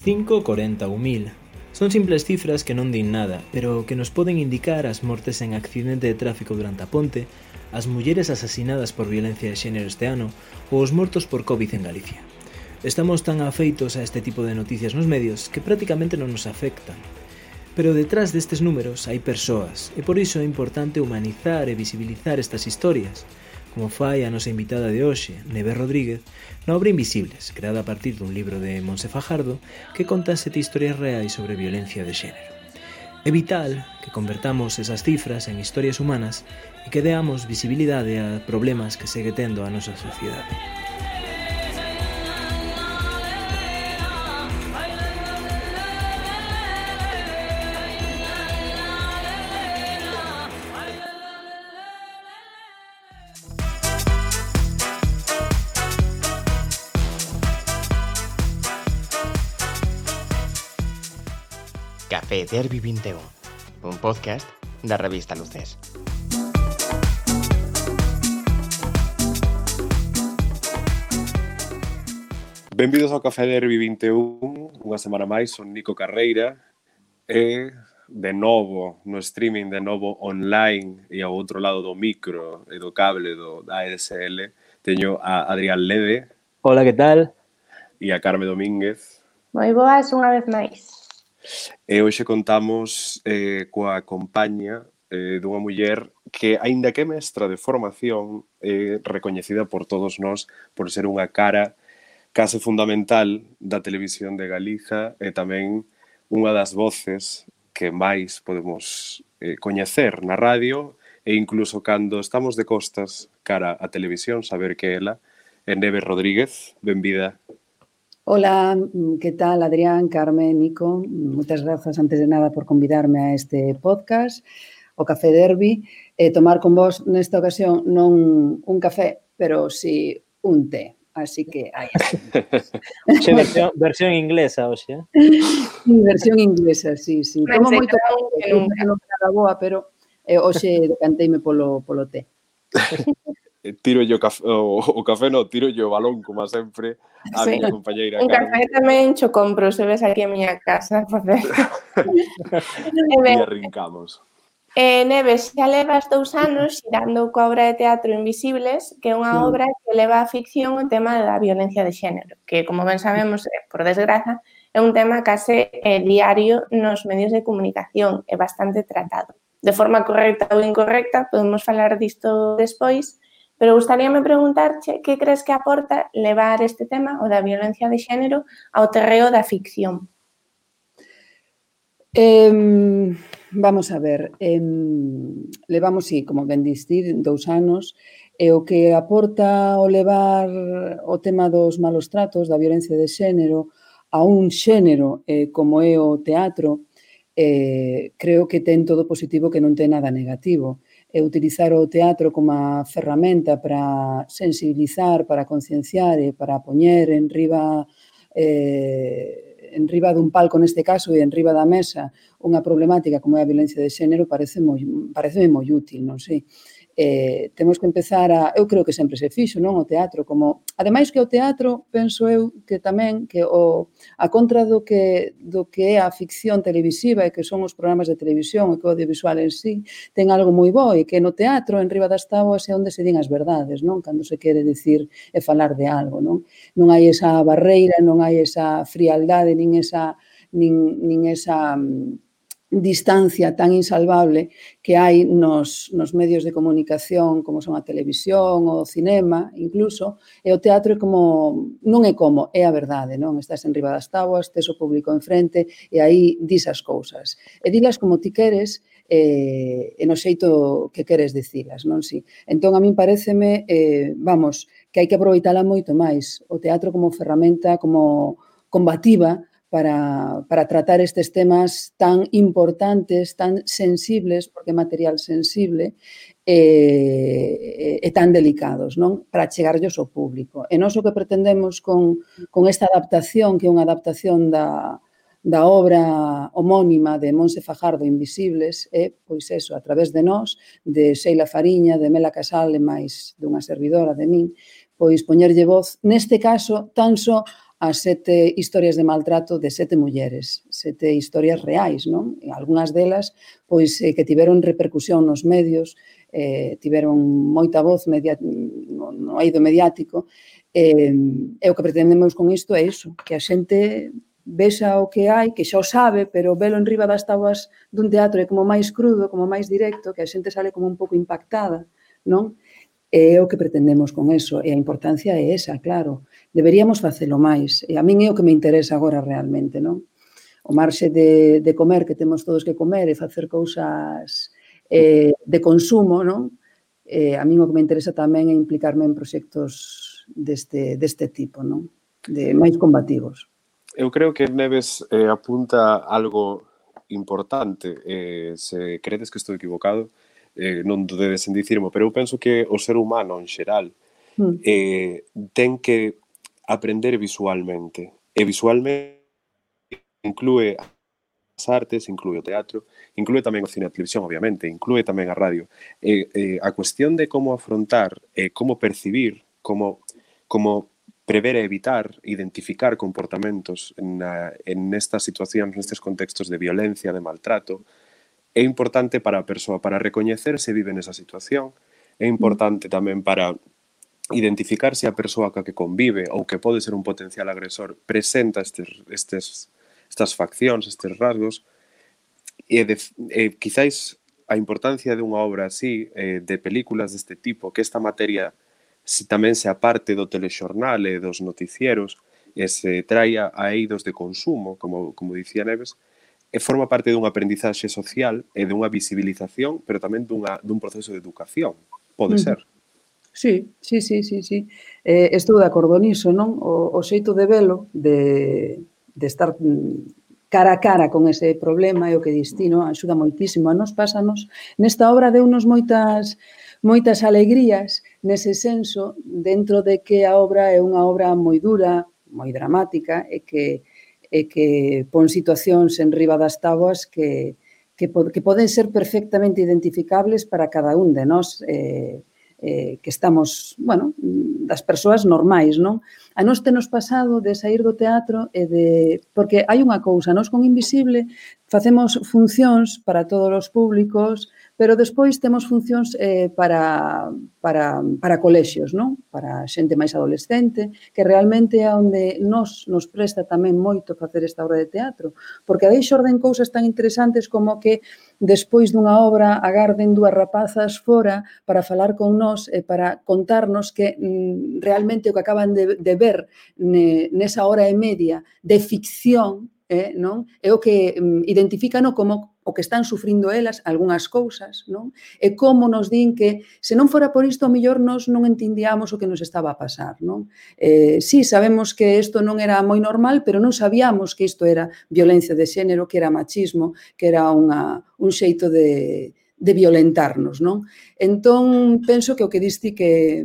5, 40 ou 1000. Son simples cifras que non din nada, pero que nos poden indicar as mortes en accidente de tráfico durante a ponte, as mulleres asasinadas por violencia de xénero este ano ou os mortos por COVID en Galicia. Estamos tan afeitos a este tipo de noticias nos medios que prácticamente non nos afectan. Pero detrás destes números hai persoas, e por iso é importante humanizar e visibilizar estas historias, como fai a nosa invitada de hoxe, Neve Rodríguez, na obra Invisibles, creada a partir dun libro de Montse Fajardo que conta 7 historias reais sobre violencia de xénero. É vital que convertamos esas cifras en historias humanas e que deamos visibilidade a problemas que segue tendo a nosa sociedade. Café Derbi 21, un podcast da revista Luces. Benvidos ao Café Derbi 21, unha semana máis, son Nico Carreira e de novo no streaming, de novo online e ao outro lado do micro e do cable do ADSL teño a Adrián Lede. Hola, que tal? E a Carme Domínguez. Moi boas unha vez máis. E hoxe contamos coa compañía dunha muller que, aínda que é mestra de formación, é recoñecida por todos nós por ser unha cara case fundamental da televisión de Galiza e tamén unha das voces que máis podemos coñecer na radio e incluso cando estamos de costas cara á televisión, saber que ela é Neve Rodríguez. Benvida. Hola, que tal, Adrián, Carmen, Nico? Moitas grazas, antes de nada, por convidarme a este podcast, o Café Derbi. Tomar con vos, nesta ocasión, non un café, pero si un té. Así que aí está. Versión inglesa, oxe. Versión inglesa, sí. Como moito café, non era boa, pero hoxe decanteime polo té. Tiro yo o café, no, tiro yo o balón, como sempre, a miña compañeira Un Carmen. café tamén cho compro, se ves aquí a miña casa. E arrincamos. Neve, xa levas 2 anos xirando coa obra de teatro Invisibles, que é unha obra que leva á ficción o tema da violencia de xénero, que, como ben sabemos, por desgraza, é un tema case diario nos medios de comunicación, é bastante tratado. De forma correcta ou incorrecta, podemos falar disto despois, pero gustaríame preguntarche que crees que aporta levar este tema, o da violencia de xénero, ao terreo da ficción. Vamos a ver, levamos, sí, como ben dicir, 2 anos, e o que aporta o levar o tema dos malos tratos, da violencia de xénero, a un xénero como é o teatro, creo que ten todo positivo que non ten nada negativo. Utilizar o teatro como a ferramenta para sensibilizar, para concienciar e para poñer en riba dun palco neste caso e en riba da mesa unha problemática como é a violencia de xénero pareceme moi útil, non sei. Temos que empezar eu creo que sempre se fixo, non, o teatro, como, ademais que o teatro, penso eu, que tamén, que a contra do que é a ficción televisiva e que son os programas de televisión e que o audiovisual en sí, ten algo moi bo e que no teatro, en riba das táboas, é onde se din as verdades, non, cando se quere dicir e falar de algo, non? Non hai esa barreira, non hai esa frialdade, nin esa distancia tan insalvable que hai nos medios de comunicación como son a televisión, o cinema, incluso, e o teatro é como, non é como, é a verdade, non? Estás en riba das táboas, tes o público enfrente e aí dis as cousas. E dilas como ti queres e no xeito que queres dicilas, non? Si. Entón, a min pareceme, que hai que aproveitala moito máis. O teatro como ferramenta, como combativa, para tratar estes temas tan importantes, tan sensibles, porque é material sensible, e tan delicados, non? Para chegarllos ao público. E nós o que pretendemos con esta adaptación, que é unha adaptación da obra homónima de Montse Fajardo, Invisibles, é, pois eso, a través de nós, de Sheila Fariña, de Mela Casal e máis dunha servidora de min, pois poñerlle voz, neste caso, tan só as 7 historias de maltrato de 7 mulleres, 7 historias reais, non? E algunhas delas, pois, que tiveron repercusión nos medios, tiveron moita voz no eido mediático, e o que pretendemos con isto é iso, que a xente vexa o que hai, que xa o sabe, pero velo en riba das táboas dun teatro é como máis crudo, como máis directo, que a xente sale como un pouco impactada, non? É o que pretendemos con eso, e a importancia é esa, claro. Deberíamos facelo máis, e a min é o que me interesa agora realmente, non? O marxe de comer, que temos todos que comer, e facer cousas de consumo, non? A min o que me interesa tamén é implicarme en proxectos deste tipo, non? De máis combativos. Eu creo que Neves apunta algo importante, se credes que estou equivocado, non dudedes en dicirmo, pero eu penso que o ser humano en xeral ten que aprender visualmente, e visualmente inclúe as artes, inclúe o teatro, inclúe tamén o cine e a televisión, obviamente, inclúe tamén a radio. A cuestión de como afrontar, como percibir, como prever e evitar, identificar comportamentos en estas situacións, nestes contextos de violencia, de maltrato, é importante para a persoa, para recoñecer se vive nesa situación, é importante tamén para identificar se a persoa que convive ou que pode ser un potencial agresor presenta estas faccións, estes rasgos, e quizáis a importancia dunha obra así, de películas deste tipo, que esta materia tamén se aparte do telexornal e dos noticieros, e se traia a eidos de consumo, como dicía Neves, e forma parte dunha aprendizaxe social e dunha visibilización, pero tamén dun proceso de educación. Pode ser. Sí. Estou de acordo niso, non? O xeito de velo, de estar cara a cara con ese problema e o que destino axuda moitísimo. A nos pásanos, nesta obra deunos moitas alegrías nese senso, dentro de que a obra é unha obra moi dura, moi dramática, e que pon situacións en riba das táboas que poden ser perfectamente identificables para cada un de nós, que estamos, bueno, das persoas normais, non? A nós tenos pasado de sair do teatro porque hai unha cousa, nós con Invisible facemos funcións para todos os públicos, pero despois temos funcións para colexios, non? Para xente máis adolescente, que realmente é onde nos presta tamén moito facer esta obra de teatro, porque aí xorden cousas tan interesantes como que despois dunha obra agarden 2 rapazas fora para falar con nós e para contarnos que realmente o que acaban de ver nesa hora e media de ficción, non? É o que identifican como o que están sufrindo elas, algunhas cousas, non? E como nos din que se non fora por isto, ao mellor nos non entendíamos o que nos estaba a pasar, non? Sí, sabemos que isto non era moi normal, pero non sabíamos que isto era violencia de xénero, que era machismo, que era un xeito de violentarnos, non? Entón, penso que o que diste que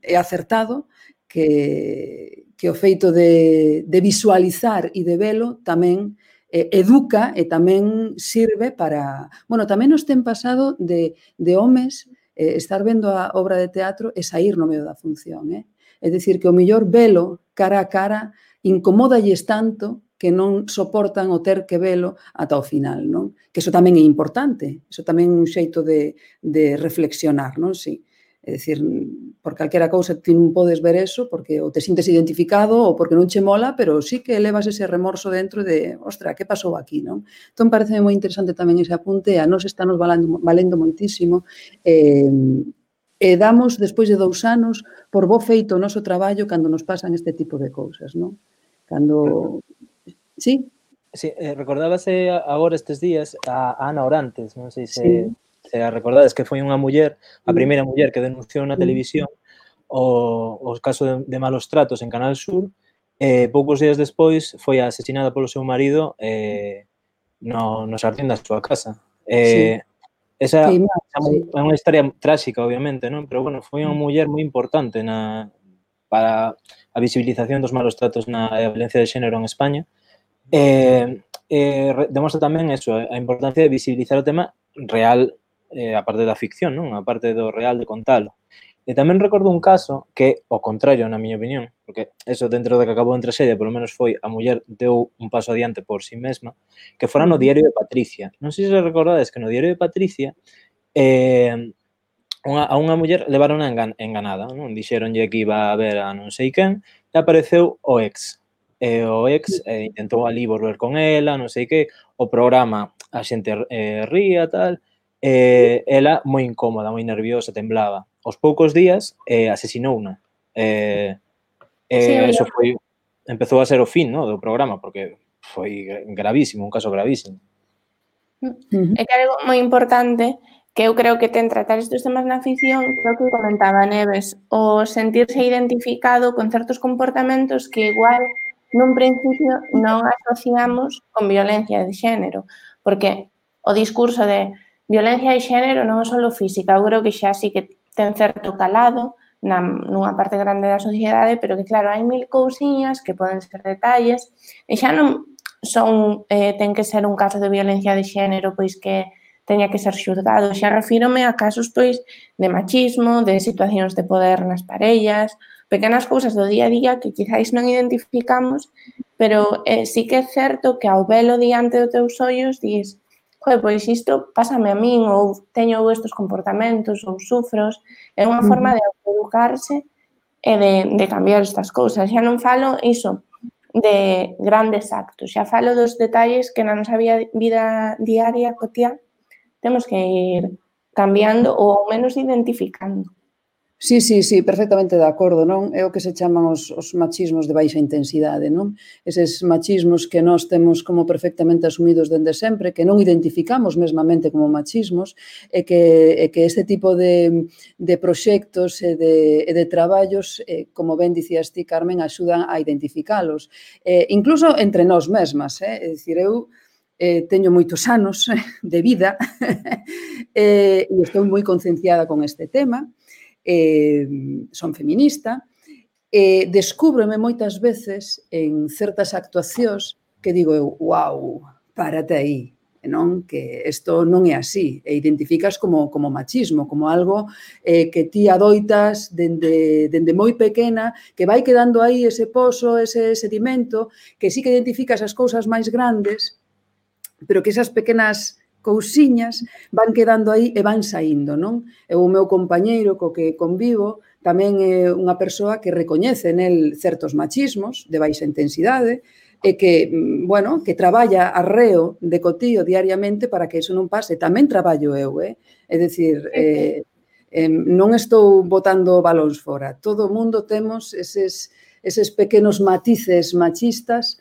é acertado, que o feito de visualizar e de velo tamén educa e tamén sirve para... Bueno, tamén nos ten pasado de homes estar vendo a obra de teatro e sair no medio da función. É dicir, que o mellor velo cara a cara incomódalles tanto que non soportan o ter que velo ata o final, non? Que iso tamén é importante, iso tamén é un xeito de reflexionar, non? Sí. É dicir, por calquera cousa ti non podes ver eso porque ou te sintes identificado ou porque non che mola, pero sí que levas ese remorso dentro de, ostra, que pasou aquí, non? Entón, parece moi interesante tamén ese apunte, a nos está nos valendo moitísimo, e damos, despois de 2 anos, por bo feito o noso traballo cando nos pasan este tipo de cousas, non? Cando... Sí? Sí, recordábase agora estes días a Ana Orantes, non sei se a recordades, que foi unha muller, a primeira muller que denunciou na televisión o caso de malos tratos en Canal Sur, poucos días despois foi asesinada polo seu marido no xardín da súa casa. Esa é unha historia tráxica, obviamente, non? Pero, bueno, foi unha muller moi importante para a visibilización dos malos tratos na violencia de xénero en España. Demostra tamén eso, a importancia de visibilizar o tema real, a parte da ficción, non? A parte do real de contalo. E tamén recordo un caso que, ao contrario, na miña opinión, porque eso dentro de que acabou en traxedia, polo menos foi a muller deu un paso adiante por si mesma, que fora no diario de Patricia. Non sei se recordades que no diario de Patricia a unha muller levaron enganada, non? Dixeronlle que iba a ver a non sei quen e apareceu o ex. E o ex intentou ali volver con ela, non sei que, o programa a xente ría, tal, ela moi incómoda, moi nerviosa, temblaba. Aos poucos días asesinouna. Eso foi, empezou a ser o fin, no, do programa, porque foi gravísimo, un caso gravísimo. É que algo moi importante que eu creo que ten tratar estes temas na ficción, creo que comentaba Neves, o sentirse identificado con certos comportamentos que igual nun principio non asociamos con violencia de xénero, porque o discurso de violencia de xénero non é só física, eu creo que xa sí que ten certo calado nunha parte grande da sociedade, pero que claro, hai mil cousiñas que poden ser detalles e xa non son, ten que ser un caso de violencia de xénero pois que teña que ser xulgado, xa refírome a casos pois de machismo, de situacións de poder nas parellas, pequenas cousas do día a día que quizáis non identificamos, pero sí que é certo que ao velo diante dos teus ollos dis, pois isto pásame a min ou teño estes comportamentos ou sufros, é unha forma de autoeducarse e de cambiar estas cousas. Xa non falo iso de grandes actos, xa falo dos detalles que na nosa vida diaria, cotiá, temos que ir cambiando ou ao menos identificando. Sí, perfectamente de acordo, non? É o que se chaman os machismos de baixa intensidade, non? Eses machismos que nós temos como perfectamente asumidos dende sempre, que non identificamos mesmamente como machismos, e que este tipo de proxectos e de traballos, como ben dicías ti, Carmen, axudan a identificalos. Incluso entre nós mesmas, é dicir, eu teño moitos anos de vida e estou moi concienciada con este tema, son feminista, descúbrome moitas veces en certas actuacións que digo eu, uau, párate aí, non? Que isto non é así, e identificas como machismo, como algo que ti adoitas dende moi pequena, que vai quedando aí ese pozo, ese sedimento, que sí que identificas as cousas máis grandes, pero que esas pequenas cousiñas van quedando aí e van saindo, non? E o meu compañeiro co que convivo tamén é unha persoa que recoñece nel certos machismos de baixa intensidade e que, bueno, que traballa arreo de cotío diariamente para que iso non pase. Tamén traballo eu, é dicir, non estou botando balóns fora. Todo o mundo temos eses pequenos matices machistas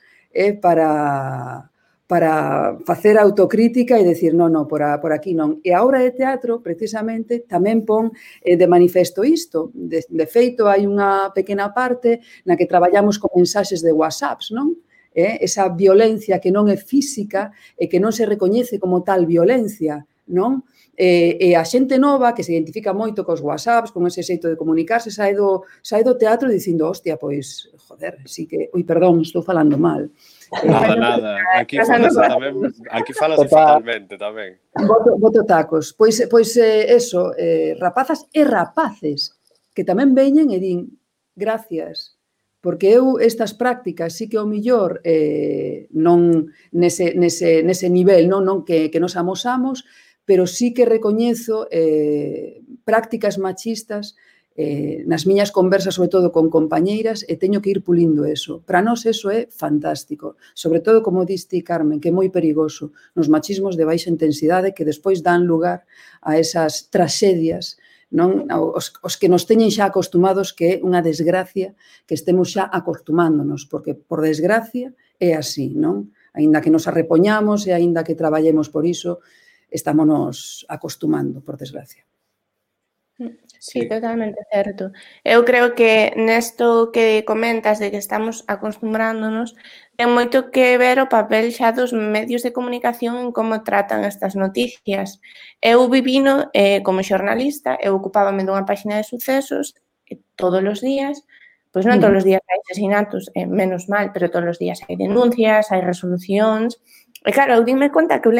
para facer autocrítica e decir, non, por aquí non. E a obra de teatro, precisamente, tamén pon de manifesto isto. De feito, hai unha pequena parte na que traballamos con mensaxes de WhatsApps, non? Esa violencia que non é física e que non se recoñece como tal violencia, non? E a xente nova que se identifica moito cos WhatsApps, con ese xeito de comunicarse, sai do teatro dicindo, hostia, pois, joder, sí que... Ui, perdón, estou falando mal. Nada. Aquí falase fatalmente tamén. Boto tacos. Pois eso, rapazas e rapaces que tamén veñen e din gracias, porque eu estas prácticas sí que ao millor non nese nivel, non que nos amosamos, pero sí que recoñezo prácticas machistas nas miñas conversas, sobre todo con compañeiras, e teño que ir pulindo eso. Para nós eso é fantástico. Sobre todo, como diste, Carmen, que é moi perigoso nos machismos de baixa intensidade que despois dan lugar a esas tragedias, non? Os que nos teñen xa acostumados, que é unha desgracia que estemos xa acostumándonos, porque, por desgracia, é así, non? Aínda que nos arrepoñamos e aínda que traballemos por iso, estámonos acostumando, por desgracia. Sí, totalmente certo. Eu creo que nesto que comentas de que estamos acostumbrándonos ten moito que ver o papel xa dos medios de comunicación en como tratan estas noticias. Eu vivino como xornalista, eu ocupábame dunha páxina de sucesos todos os días, pois non todos os días hai asesinatos, menos mal, pero todos os días hai denuncias, hai resolucións. E claro, eu dime conta que eu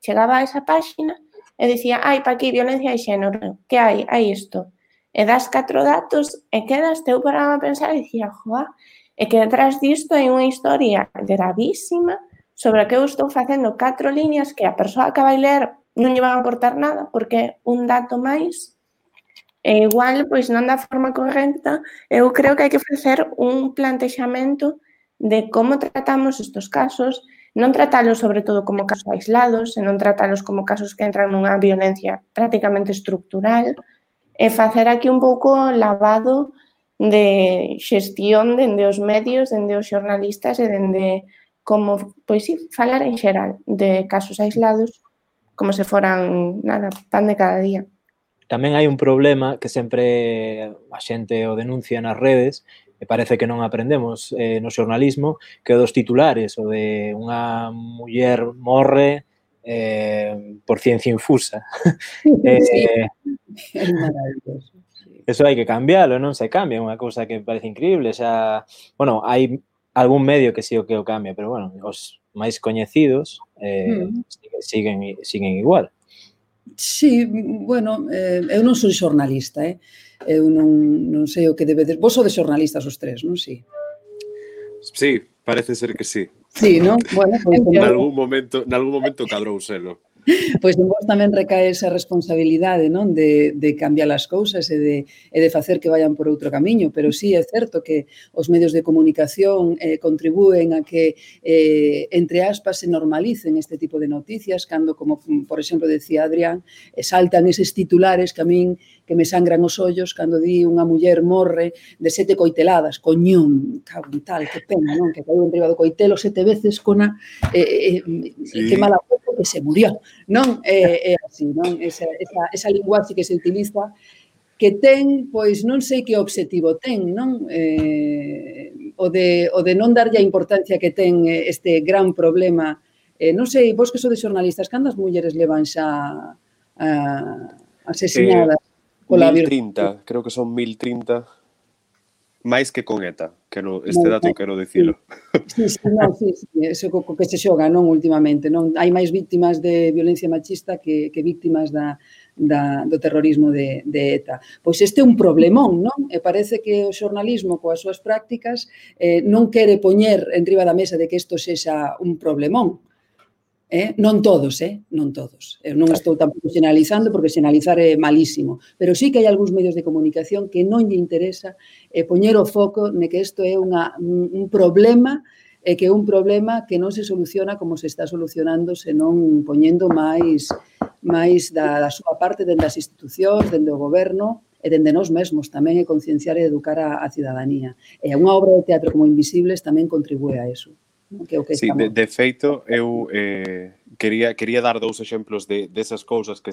chegaba a esa páxina e dicía, pa aquí, violencia de xénero, que hai? Hai isto. e das 4 datos e quedas teu para pensar e dicía, joa, é que detrás disto hai unha historia gravísima sobre a que eu estou facendo 4 líneas que a persoa que vai ler non lle van a aportar nada porque un dato máis e igual, pois non da forma correcta, eu creo que hai que facer un plantexamento de como tratamos estes casos, non tratalos sobre todo como casos aislados, senón tratalos como casos que entran nunha violencia prácticamente estructural e facer aquí un pouco lavado de xestión dende os medios, dende os xornalistas e dende como, pois sí, falar en xeral de casos aislados como se foran, nada, pan de cada día. Tamén hai un problema que sempre a xente o denuncia nas redes e parece que non aprendemos no xornalismo, que é dos titulares, o de unha muller morre por ciencia infusa. Sí, é maravilloso. Eso hai que cambiálo, non se cambia, é unha cousa que parece increíble, xa, bueno, hai algún medio que sí o que o cambia, pero bueno, os máis coñecidos siguen igual. Sí, bueno, eu non sou xornalista, eu non sei o que debedes... Vos sodes xornalistas os tres, non? Sí. Sí, parece ser que sí. Sí, non? Bueno, pois Nalgún momento cadrou selo. Pois en vos tamén recae esa responsabilidade, non, de cambiar as cousas e de facer que vayan por outro camiño, pero sí é certo que os medios de comunicación contribúen a que, entre aspas, se normalicen este tipo de noticias, cando, como por exemplo decía Adrián, saltan eses titulares que a min que me sangran os ollos cando di unha muller morre de 7 coiteladas, coñón, cago en tal, que pena, non, que caiu enriba do coitelo 7 veces cona, sí. Que mala foto que se murió. Non é así, non? Esa linguaxe que se utiliza que ten, pois non sei que obxectivo ten, non? O de non darlle a importancia que ten este gran problema. Non sei, vos que sodes xornalistas, cantas mulleres levan xa asesinadas? 1030, creo que son 1030. máis que con ETA, este dato quero dicilo. Sí, eso que se xoga, non, últimamente, non? Hai máis víctimas de violencia machista que víctimas do terrorismo de ETA. Pois este é un problemón, non? E parece que o xornalismo, coas súas prácticas, non quere poñer enriba da mesa de que isto sexa un problemón. Non todos, non todos. Eu non estou tampouco xeneralizando porque xeneralizar é malísimo, pero sí que hai algúns medios de comunicación que non lle interesa poñer o foco ne que isto é un problema e que é un problema que non se soluciona como se está solucionando senón poñendo máis da súa parte dende as institucións, dende o goberno e dende nós mesmos tamén é concienciar e educar a cidadanía. E unha obra de teatro como Invisibles tamén contribúe a eso. Sí, de feito, eu quería dar dous exemplos desas cousas que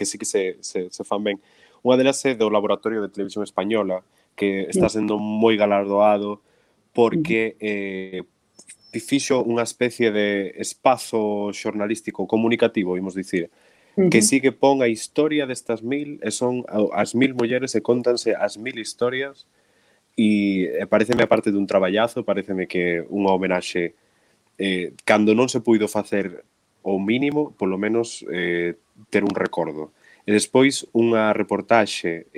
sí que se fan ben. Unha delas é do Laboratorio de Televisión Española, que está sendo moi galardoado porque fixo unha especie de espazo xornalístico comunicativo, imos dicir, que sí que pon a historia destas 1000, e son as 1000 mulleres e contanse as 1000 historias. E pareceme, aparte dun traballazo, pareceme que unha homenaxe cando non se puido facer o mínimo, polo menos ter un recordo. E despois unha reportaxe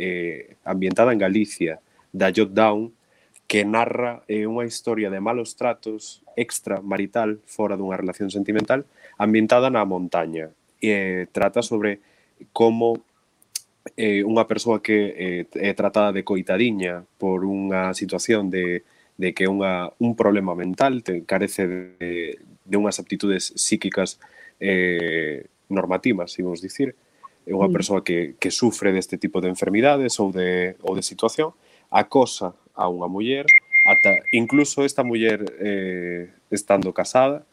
ambientada en Galicia da Jot Down que narra unha historia de malos tratos extramarital fora dunha relación sentimental ambientada na montaña e trata sobre como unha persoa que é tratada de coitadiña por unha situación de que é un problema mental, carece de unhas aptitudes psíquicas normativas, imos dicir, é unha persoa que sufre deste tipo de enfermidades ou de situación, acosa a unha muller, incluso esta muller estando casada,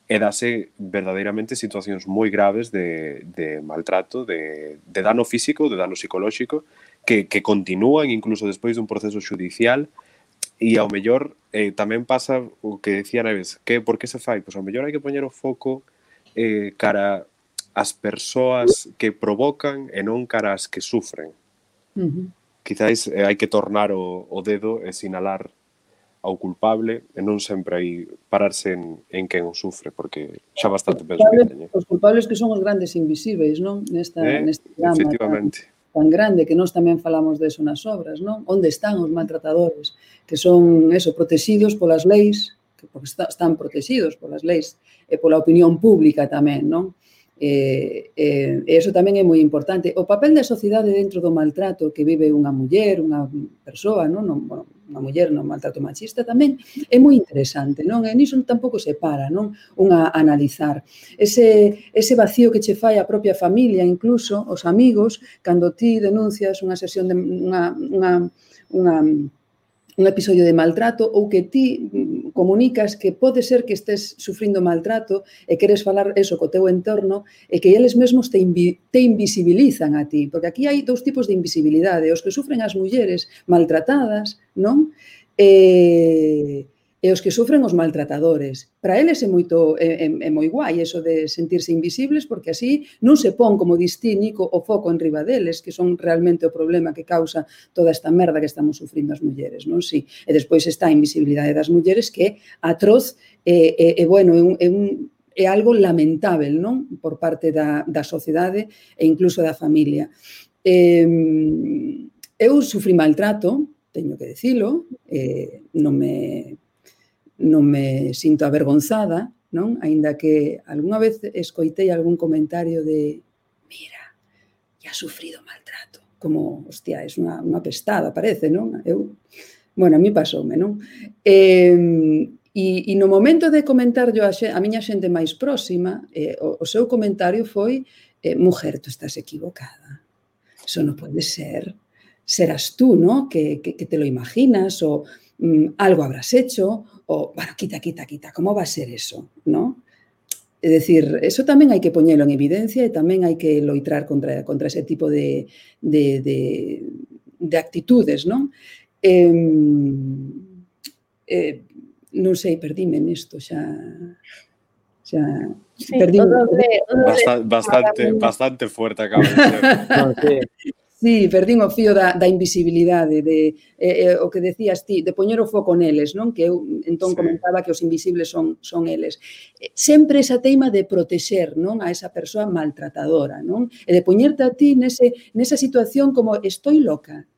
e dase verdadeiramente situacións moi graves de maltrato, de dano físico, de dano psicolóxico, que continúan incluso despois dun proceso xudicial, e ao mellor tamén pasa o que decía Neves, por que se fai? Pois ao mellor hai que poñer o foco cara as persoas que provocan e non cara as que sufren. Quizás hai que tornar o dedo e sinalar ao culpable e non sempre aí pararse en quen o sufre, porque xa bastante penso que teñe. Os culpables que son os grandes invisíveis, non? Neste drama. Efectivamente. tan grande que nós tamén falamos deso nas obras, non? Onde están os maltratadores? Que son, protegidos polas leis, porque están protegidos polas leis e pola opinión pública tamén, non? E iso tamén é moi importante. O papel da sociedade dentro do maltrato que vive unha muller, unha persoa, non? Unha muller no maltrato machista tamén é moi interesante, non? E niso tampouco se para, non? Unha analizar. Ese vacío que che fai a propia familia, incluso os amigos, cando ti denuncias unha sesión de un episodio de maltrato ou que ti comunicas que pode ser que estés sufrindo maltrato e queres falar eso co teu entorno e que eles mesmos te invisibilizan a ti, porque aquí hai dous tipos de invisibilidade, os que sufren as mulleres maltratadas, non? E os que sufren os maltratadores. Para eles é moi guai eso de sentirse invisibles, porque así non se pon, como distí, Nico, o foco en riba deles, que son realmente o problema que causa toda esta merda que estamos sufrindo as mulleres, non? Sí. E despois está a invisibilidade das mulleres, que é atroz é algo lamentável, non? Por parte da sociedade e incluso da familia. Eu sufrí maltrato, teño que dicilo, non me sinto avergonzada, non? Aínda que algunha vez escoitei algún comentario de mira, ya sufrido maltrato, como, hostia, é unha pestada, parece, non? A mí pasoume, non? E no momento de comentarlo a miña xente máis próxima, o seu comentario foi mujer, tú estás equivocada. Eso non pode ser. Serás tú, ¿no? Que te lo imaginas o algo habrás hecho o, bueno, quita, ¿cómo va a ser eso? ¿No? É dicir, eso tamén hai que poñelo en evidencia e tamén hai que loitrar contra ese tipo de actitudes, non? Non sei, perdíme nesto, xa perdíme. Bastante fuerte acaba de ser. Non, sí. Sí, perdín o fío da invisibilidade, o que decías ti, de poñer o foco neles, non? Que eu entón comentaba que os invisibles son eles. Sempre esa teima de protexer, non? A esa persoa maltratadora, non? E de poñerte a ti nesa situación como estoy loca,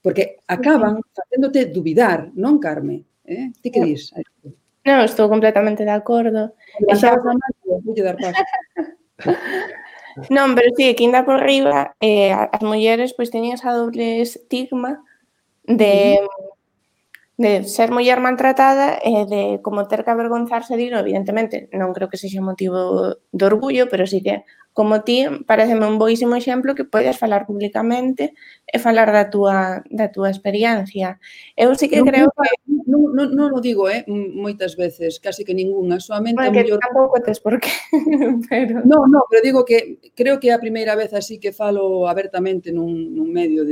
porque acaban facéndote dubidar, non, Carme? Ti que dis? Non, estou completamente de acordo. Levantabas a mano, voulle dar paso. Non, pero sí, que ainda por riba as mulleres pois teñen esa doble estigma de ser muller maltratada e de como ter que avergonzarse de, evidentemente, non creo que sexa motivo de orgullo, pero sí que, como ti, pareceme un boísimo exemplo que podes falar públicamente e falar da túa experiencia. Eu sí que creo que... Non o digo, moitas veces, casi que ningunha, soamente a mellor... Tampouco tes por qué, pero... Non, pero digo que creo que é a primeira vez así que falo abertamente nun medio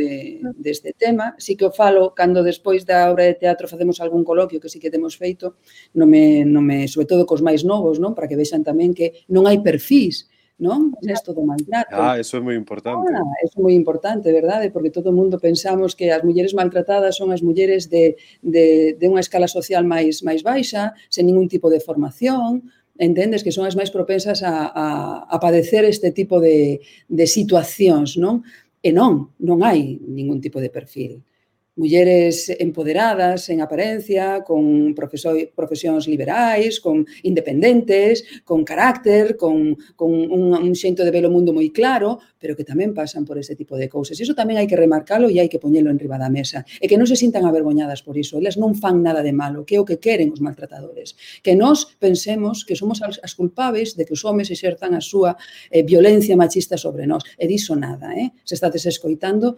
deste tema, sí que o falo cando despois da obra de teatro facemos algún coloquio que sí que temos feito, sobre todo cos máis novos, non? Para que vexan tamén que non hai perfís, non? Nesto do maltrato. Eso é moi importante. Eso é moi importante, verdade? Porque todo o mundo pensamos que as mulleres maltratadas son as mulleres de unha escala social máis baixa, sen ningún tipo de formación, entendes? Que son as máis propensas a padecer este tipo de situacións, non? E non hai ningún tipo de perfil. Mulleres empoderadas, en apariencia, con profesións liberais, con independentes, con carácter, con un xeito de ver o mundo moi claro, pero que tamén pasan por ese tipo de cousas. Iso tamén hai que remarcalo e hai que poñelo en riba da mesa. E que non se sintan avergoñadas por iso. Elas non fan nada de malo, que é o que queren os maltratadores. Que nós pensemos que somos as culpables de que os homes exerzan a súa violencia machista sobre nós. E diso nada, Se estades escoitando,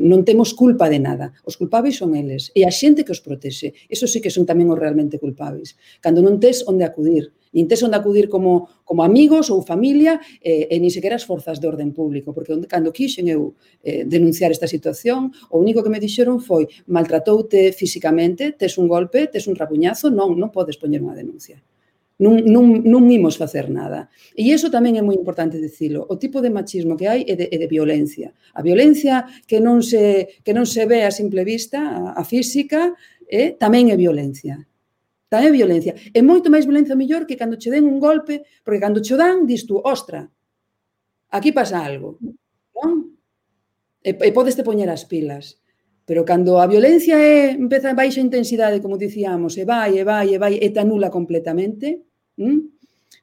non temos culpa de nada. Os culpables son eles. E a xente que os protexe. Eso sí que son tamén os realmente culpables. Cando non tes onde acudir. Nin tes onde acudir como amigos ou familia e nin sequera as forzas de orden público. Porque cando quixen eu denunciar esta situación, o único que me dixeron foi maltratoute físicamente, tes un golpe, tes un rapuñazo, non podes poñer unha denuncia. Non imos facer nada. E iso tamén é moi importante dicilo. O tipo de machismo que hai é de violencia. A violencia que non se ve a simple vista, a física, tamén é violencia. Tamén é violencia. É moito máis violencia mellor que cando che den un golpe, porque cando che dan, dis tú, ostra, aquí pasa algo. Non? E podes te poñer as pilas. Pero cando a violencia empeza a baixa intensidade, como dicíamos, e vai, e te anula completamente,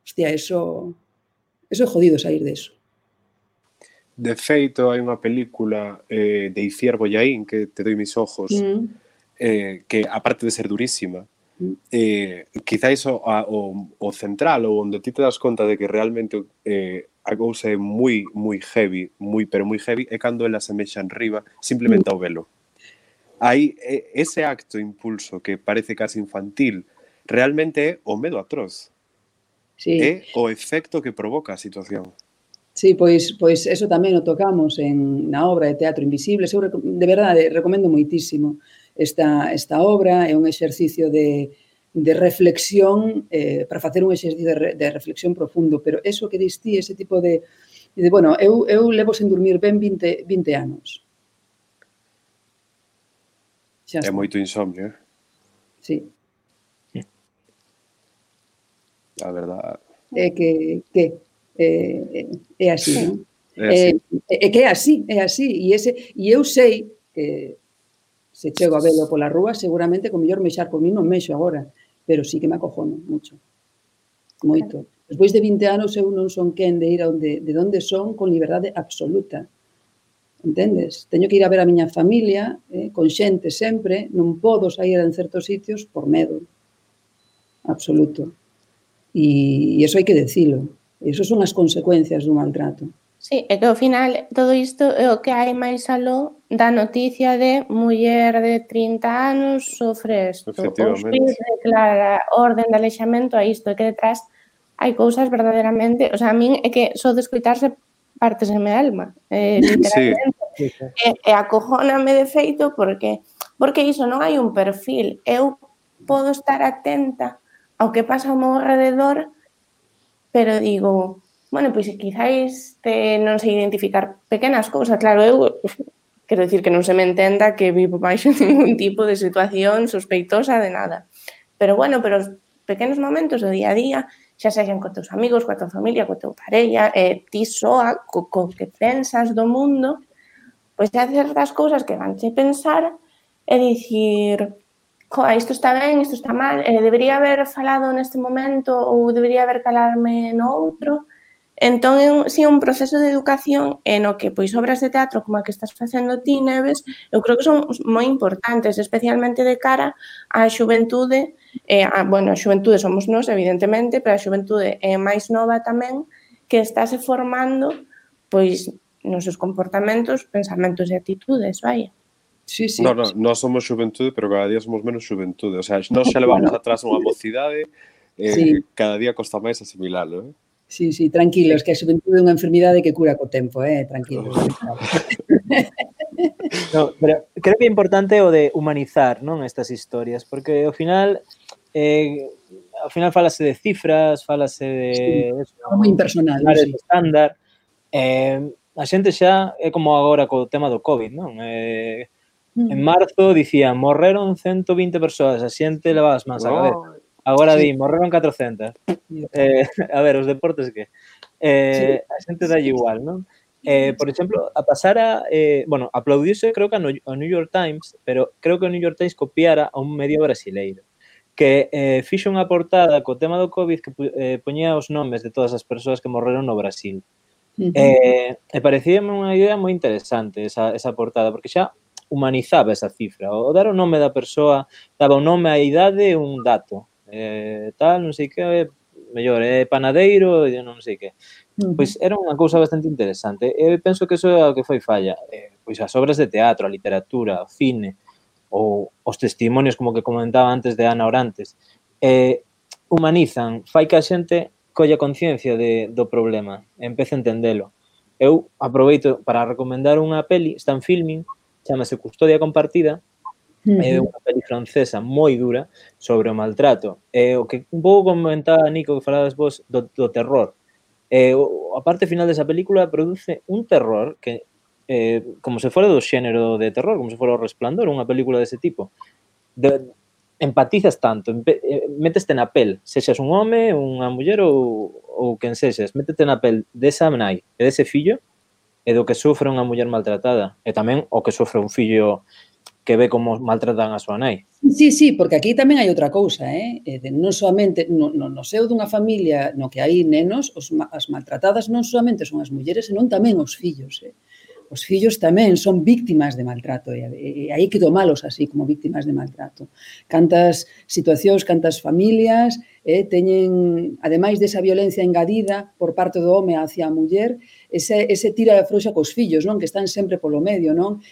hostia, eso é jodido sair deso. De feito, hai unha película de Iciar Bollaín, que Te doi mis ojos, que aparte de ser durísima, quizáis o central, ou onde ti te das conta de que realmente a cousa é moi heavy, pero moi heavy, é cando ela se mexa en riba simplemente ao velo. Aí, ese acto impulso que parece casi infantil, realmente é o medo atroz. Sí. É o efecto que provoca a situación. Sí, pois eso tamén o tocamos na obra de Teatro Invisible. Eu, de verdade, recomendo moitísimo esta obra. É un exercicio de reflexión, para facer un exercicio de reflexión profundo, pero eso que dis ti, ese tipo de bueno, eu levo sen dormir ben 20 anos. É moito insomnio, Sí. A verdade. É que é así, non? É que é así. E eu sei que se chego a velo pola rúa, seguramente con mellor mexar por mí non mexo agora, pero sí que me acojono mucho. Moito. Despois de 20 anos eu non son quen de ir de onde son con liberdade absoluta. Entendes? Teño que ir a ver a miña familia, con xente sempre, non podo sair en certos sitios por medo absoluto. E iso hai que decilo. Iso son as consecuencias dun maltrato. Sí, é que ao final todo isto é o que hai máis aló da noticia de muller de 30 anos sofre isto. O xuíz declara orden de alexamento a isto, e que detrás hai cousas verdadeiramente... O sea, a min é que só de escoitarse parteseme a alma, literalmente. Sí. E acojóname de feito porque iso non hai un perfil. Eu podo estar atenta ao que pasa ao meu alrededor, pero digo, bueno, pois quizáis non sei identificar pequenas cousas. Claro, eu quero dicir que non se me entenda que vivo baixo ningún tipo de situación sospeitosa de nada. Pero bueno, pero os pequenos momentos do día a día, xa sexan co teus amigos, coa tua familia, coa tua parella, ti soa, co que pensas do mundo, pois hai certas cousas que vanche pensar e dicir, isto está ben, isto está mal, debería haber falado neste momento ou debería haber calarme no outro. Entón, si un proceso de educación no que pois obras de teatro como a que estás facendo ti, Neves, eu creo que son moi importantes, especialmente de cara á xuventude. Bueno, a xuventude somos nós, evidentemente, pero a xuventude máis nova tamén, que estáse formando pois nos seus comportamentos, pensamentos e actitudes, vai. Sí. Nós somos xuventude, pero cada día somos menos xuventude. O sea, nós xa levamos atrás unha mocidade, cada día costa máis asimilalo, Sí, tranquilos, que a xuventude é unha enfermidade que cura co tempo, tranquilos. No, pero creo que é importante o de humanizar, non, estas historias, porque ao final falase de cifras, falase de... Sí, moi impersonal, sí. Estándar. A xente xa é como agora co tema do COVID, non? En marzo dicían, morreron 120 persoas, a xente levaba as mans a cabeza. Agora di, morreron 400. A ver, os deportes que? A xente dá igual, non? Por exemplo, bueno, aplaudiuse creo que ao New York Times, pero creo que o New York Times copiara a un medio brasileiro, que fixo unha portada co tema do COVID que poñía os nomes de todas as persoas que morreron no Brasil. E parecíame unha idea moi interesante esa portada, porque xa humanizaba esa cifra. O dar o nome da persoa, daba o nome, a idade e un dato. Tal, non sei que, mellor, panadeiro, non sei que. Pois era unha cousa bastante interesante. Eu penso que iso é o que foi falla. Pois as obras de teatro, a literatura, o cine, ou os testimonios, como que comentaba antes de Ana Orantes, humanizan, fai que a xente colla conciencia do problema, empece a entendelo. Eu aproveito para recomendar unha peli, está en Filmin, chamase Custodia Compartida, é unha peli francesa moi dura sobre o maltrato. O que un pouco comentaba Nico, que falabas vos do terror. A parte final desa película produce un terror que, como se fora do xénero de terror, como se fora o Resplandor, unha película dese tipo. Empatizas tanto, méteste na pel, sexas un home, unha muller ou quen sexas, métete na pel desa nai e dese fillo e do que sofre unha muller maltratada, e tamén o que sofre un fillo que ve como maltratan a súa nai. Sí, porque aquí tamén hai outra cousa, non soamente no seo dunha familia no que hai nenos, as maltratadas non soamente son as mulleres, senón tamén os fillos, Os fillos tamén son víctimas de maltrato e hai que tomalos así como víctimas de maltrato. Cantas situacións, cantas familias teñen, ademais desa violencia engadida por parte do home hacia a muller, ese tira e afrouxa cos fillos, non? Que están sempre polo medio, non?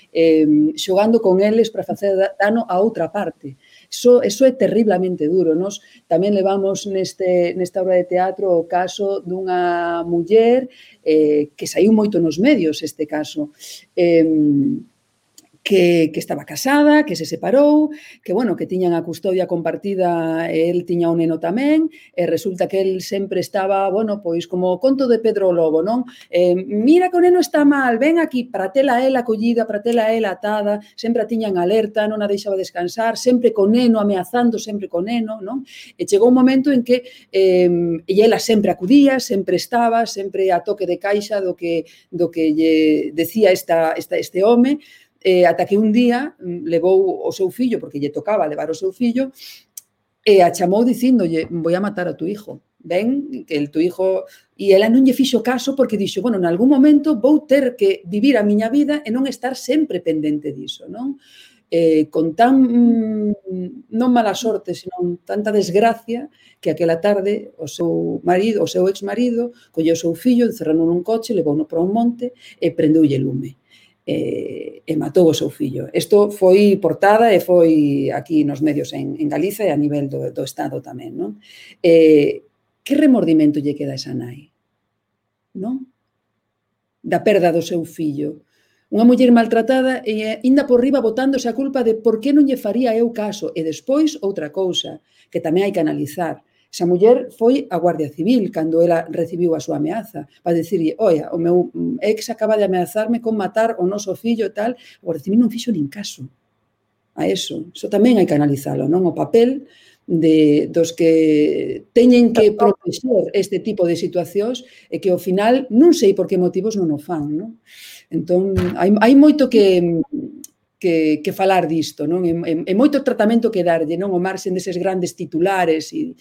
Xogando con eles para facer dano a outra parte. Eso é terriblemente duro. Nos tamén levamos nesta obra de teatro o caso dunha muller que saiu moito nos medios este caso, que estaba casada, que se separou, que, bueno, que tiñan a custodia compartida e el tiña un neno tamén, e resulta que el sempre estaba, bueno, pois como o conto de Pedro Lobo, non? Mira que o neno está mal, ven aquí, para tela ela collida, para tela ela atada, sempre a tiñan alerta, non a deixaba descansar, sempre co neno, ameazando sempre co neno, non? E chegou un momento en que e ela sempre acudía, sempre estaba, sempre a toque de caixa do que lle decía este home, ata que un día levou o seu fillo, porque lle tocaba levar o seu fillo, e a chamou dicíndolle, voy a matar a tu hijo. Ven, que el tu hijo... E ela non lle fixo caso porque dixo, bueno, en algún momento vou ter que vivir a miña vida e non estar sempre pendente diso, non? Con tan, non mala sorte, senón tanta desgracia, que aquela tarde o seu marido, o seu exmarido, colleu o seu fillo, encerrou nun coche, levouno para un monte e prendeulle lume. E matou o seu fillo. Isto foi portada e foi aquí nos medios en Galiza e a nivel do Estado tamén, non? Que remordimento lle queda a esa nai? Non? Da perda do seu fillo. Unha muller maltratada e ainda por riba botándose a culpa de por que non lle faría eu caso. E despois outra cousa que tamén hai que analizar. Esa muller foi a Guardia Civil cando ela recibiu a súa ameaza para dicirlle, oia, o meu ex acaba de ameazarme con matar o noso fillo e tal. A Guardia Civil non fixo nin caso a eso. Eso tamén hai que analizalo, non? O papel dos que teñen que protexer este tipo de situacións e que ao final non sei por que motivos non o fan, non? Entón, hai moito que falar disto, non? E moito tratamento que darlle, non? O marxen deses grandes titulares e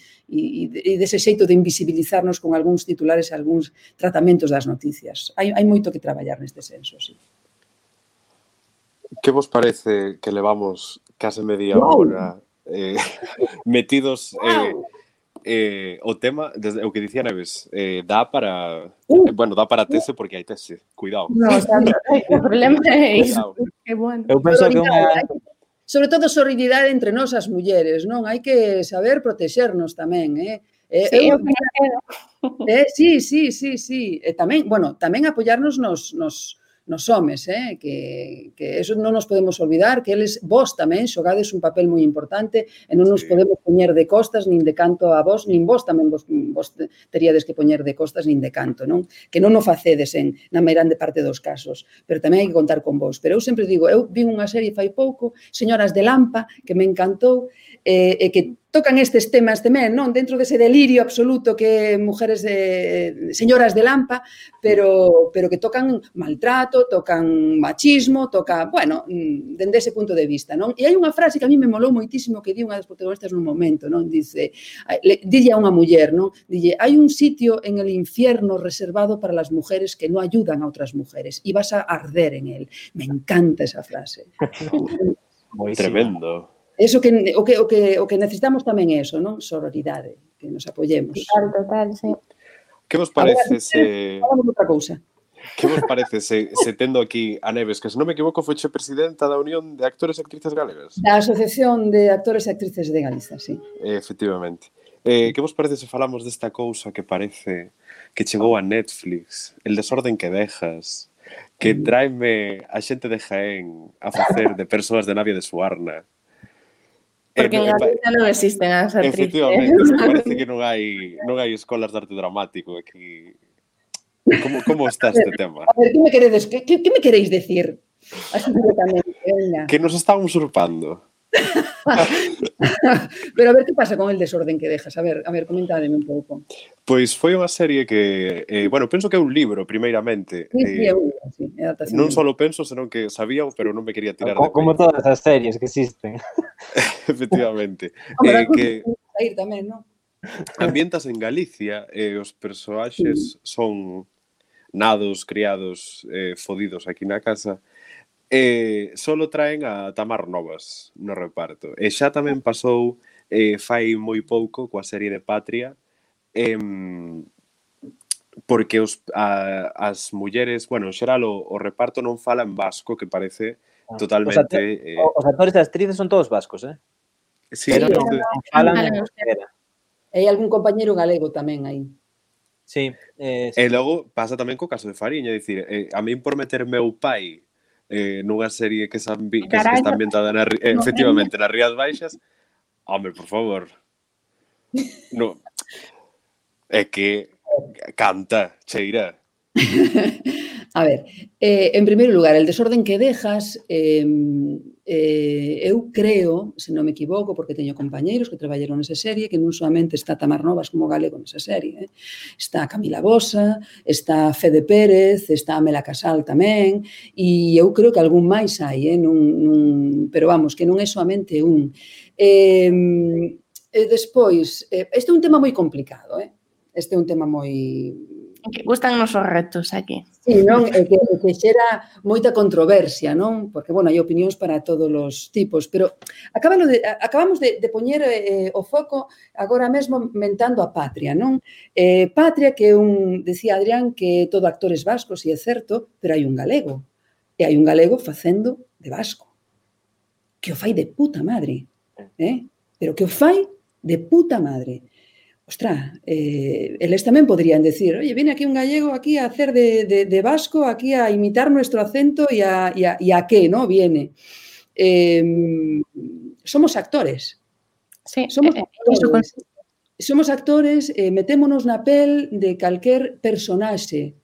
dese xeito de invisibilizarnos con algúns titulares e algúns tratamentos das noticias. Hai moito que traballar neste senso, sí. Que vos parece que levamos case media hora metidos o tema, desde o que dicía Neves, dá para bueno, dá para tese porque hai tese, cuidado. No, o sea, o problema é iso. Que bueno. Eu penso que unha... Sobre todo, sororidade entre nós as mulleres, non? Hai que saber protexernos tamén, Sí, eu quero. Sí. E tamén, bueno, tamén apoiarnos nos homes, que eso non nos podemos olvidar, que eles, vos tamén, xogades un papel moi importante e non nos podemos poñer de costas nin de canto a vos, nin vos tamén vos teríades que poñer de costas nin de canto, non? Que non o facedes na meirande parte dos casos, pero tamén hai que contar con vos. Pero eu sempre digo, eu vin unha serie fai pouco, Señoras de Lampa, que me encantou, e que tocan estes temas tamén, non? Dentro dese delirio absoluto que mujeres señoras de Lampa, pero que tocan maltrato, tocan machismo, bueno, dende ese punto de vista, non? E hai unha frase que a mí me molou moitísimo que di unha das protagonistas nun momento, non? Dice, dille a unha muller, non? Dille, hai un sitio en el infierno reservado para las mujeres que no ayudan a otras mujeres y vas a arder en él. Me encanta esa frase. Tremendo. Eso o que necesitamos tamén é eso, non? Sororidade, que nos apoyemos. Total, sí. Que vos parece se... Falamos outra cousa. Que vos parece se tendo aquí a Neves, que se non me equivoco foche presidenta da Unión de Actores e Actrices Galegas? Da Asociación de Actores e Actrices de Galiza, sí. Efectivamente. Que vos parece se falamos desta cousa que parece que chegou a Netflix, El desorden que dejas, que tráeme a xente de Jaén a facer de persoas de Navia de Suarna? Porque en Galicia non existen as actrices. Efectivamente, parece que non hai escolas de arte dramático aquí. Como está este tema? A ver, que me queredes decir? Así directamente, venga. Que nos están usurpando. Pero a ver que pasa con El desorden que dejas. A ver, comentádeme un pouco. Pois foi unha serie que, bueno, penso que é un libro, primeiramente. Sí, é adaptación. Non só lo penso, senón que sabía, pero non me quería tirar de Como peito. todas as series que existen. Efectivamente. Hombre, Que sair tamén, non? ambientas en Galicia e os persoaxes son nados, criados, fodidos aquí na casa. Solo traen a Tamar Novas no reparto. E xa tamén pasou fai moi pouco coa serie de Patria, porque as mulleres, bueno, en xeral o reparto non fala en vasco, que parece totalmente... Os actores e actrices son todos vascos, Sí, pero non falan falan en euskera. E hai algún compañeiro galego tamén aí. Sí. E logo pasa tamén co caso de Fariña, é dicir, a min por meter meu pai nunha serie que está ambientada efectivamente nas Rías Baixas, home, por favor. No. É que canta, cheira. A ver, en primeiro lugar, El desorden que dejas, eu creo, se non me equivoco, porque teño compañeiros que traballaron nesa serie, que non solamente está Tamar Novas como galego nesa serie, está Camila Bosa, está Fede Pérez, está Amela Casal tamén, e eu creo que algún máis hai, pero vamos, que non é solamente un. Despois, este é un tema moi complicado, este é un tema moi... Que gustan os retos aquí. Sí, non? É que xera moita controversia, non? Porque, bueno, hai opinións para todos os tipos, pero acabamos de poñer o foco agora mesmo mentando a Patria, non? Patria, que decía Adrián que todo actores vascos, e é certo, pero hai un galego. E hai un galego facendo de vasco. Que o fai de puta madre. Pero que o fai de puta madre. Ostras, eles tamén podrían decir, oye, viene aquí un gallego aquí a hacer de vasco, aquí a imitar nuestro acento y a qué, ¿no? Viene. Somos actores. Sí, somos actores, metémonos na pel de calquer personaxe,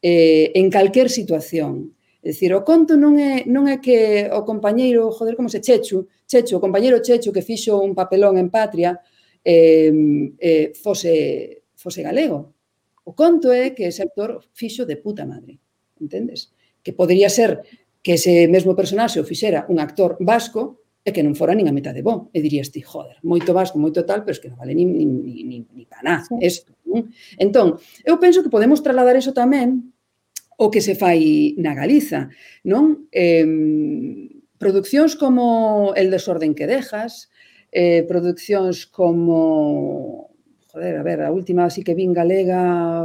en calquer situación. É dicir, o conto non é que o compañeiro, como se Chechu, o compañeiro Chechu que fixo un papelón en Patria, fose galego. O conto é que ese actor fixo de puta madre, entendes? Que podería ser que ese mesmo personaxe o fixera un actor vasco e que non fora nin a metade bo. E dirías ti, joder, moito vasco, moito tal, pero es que non vale ni para nada. Entón, eu penso que podemos trasladar iso tamén o que se fai na Galiza, non? Produccións como El desorden que dejas, produccións como, joder, a ver, a última así que vin galega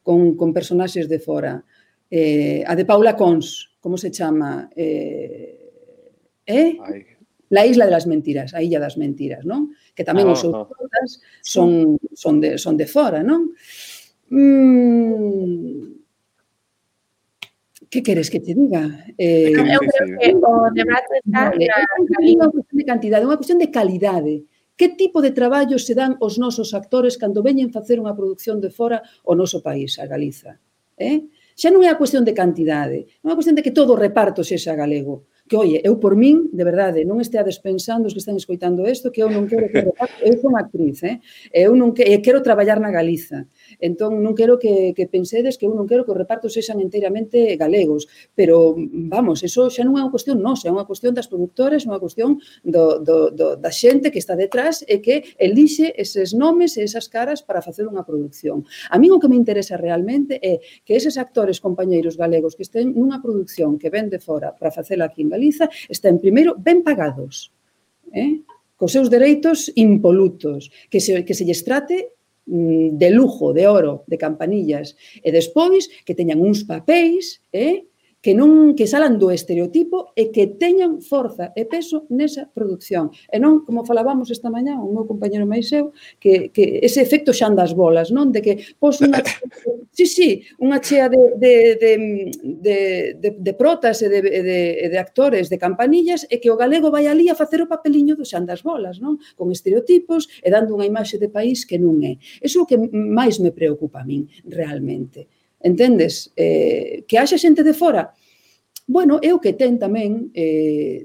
con personaxes de fora, a de Paula Cons, como se chama? La isla de las mentiras, a illa das mentiras, non? Que tamén os seus protas son de fora, non? Que queres que te diga? Eu creo que o debate está na cuestión de cantidade, unha cuestión de calidade. Que tipo de traballo se dan os nosos actores cando veñen facer unha produción de fora ao noso país, a Galiza? Xa non é a cuestión de cantidade, non é a cuestión de que todo o reparto sexa galego. Que, oye, eu por min, de verdade, non esteades pensando os que están escoitando isto, que eu non quero que o reparto, eu son actriz, eu non quero traballar na Galiza. Entón, non quero que pensedes que eu non quero que os repartos sexan enteiramente galegos, pero, vamos, eso xa non é unha cuestión nosa, é unha cuestión das productoras, é unha cuestión da xente que está detrás e que elixe eses nomes e esas caras para facer unha produción. A min o que me interesa realmente é que eses actores compañeiros galegos que estén nunha produción que ven de fora para facela aquí en Galiza, estén primeiro ben pagados, cos seus dereitos impolutos, que se lles trate de lujo, de oro, de campanillas, e despois que teñan uns papéis que salan do estereotipo e que teñan forza e peso nesa produción. E non, como falábamos esta mañá, o meu compañero máis eu, que ese efecto xan das bolas, non? De que pos unha chea de protas e de actores, de campanillas, e que o galego vai ali a facer o papeliño do xan das bolas, non? Con estereotipos e dando unha imaxe de país que non é. Iso é o que máis me preocupa a min, realmente. Entendes? Que haxa xente de fora, Bueno, é o que ten tamén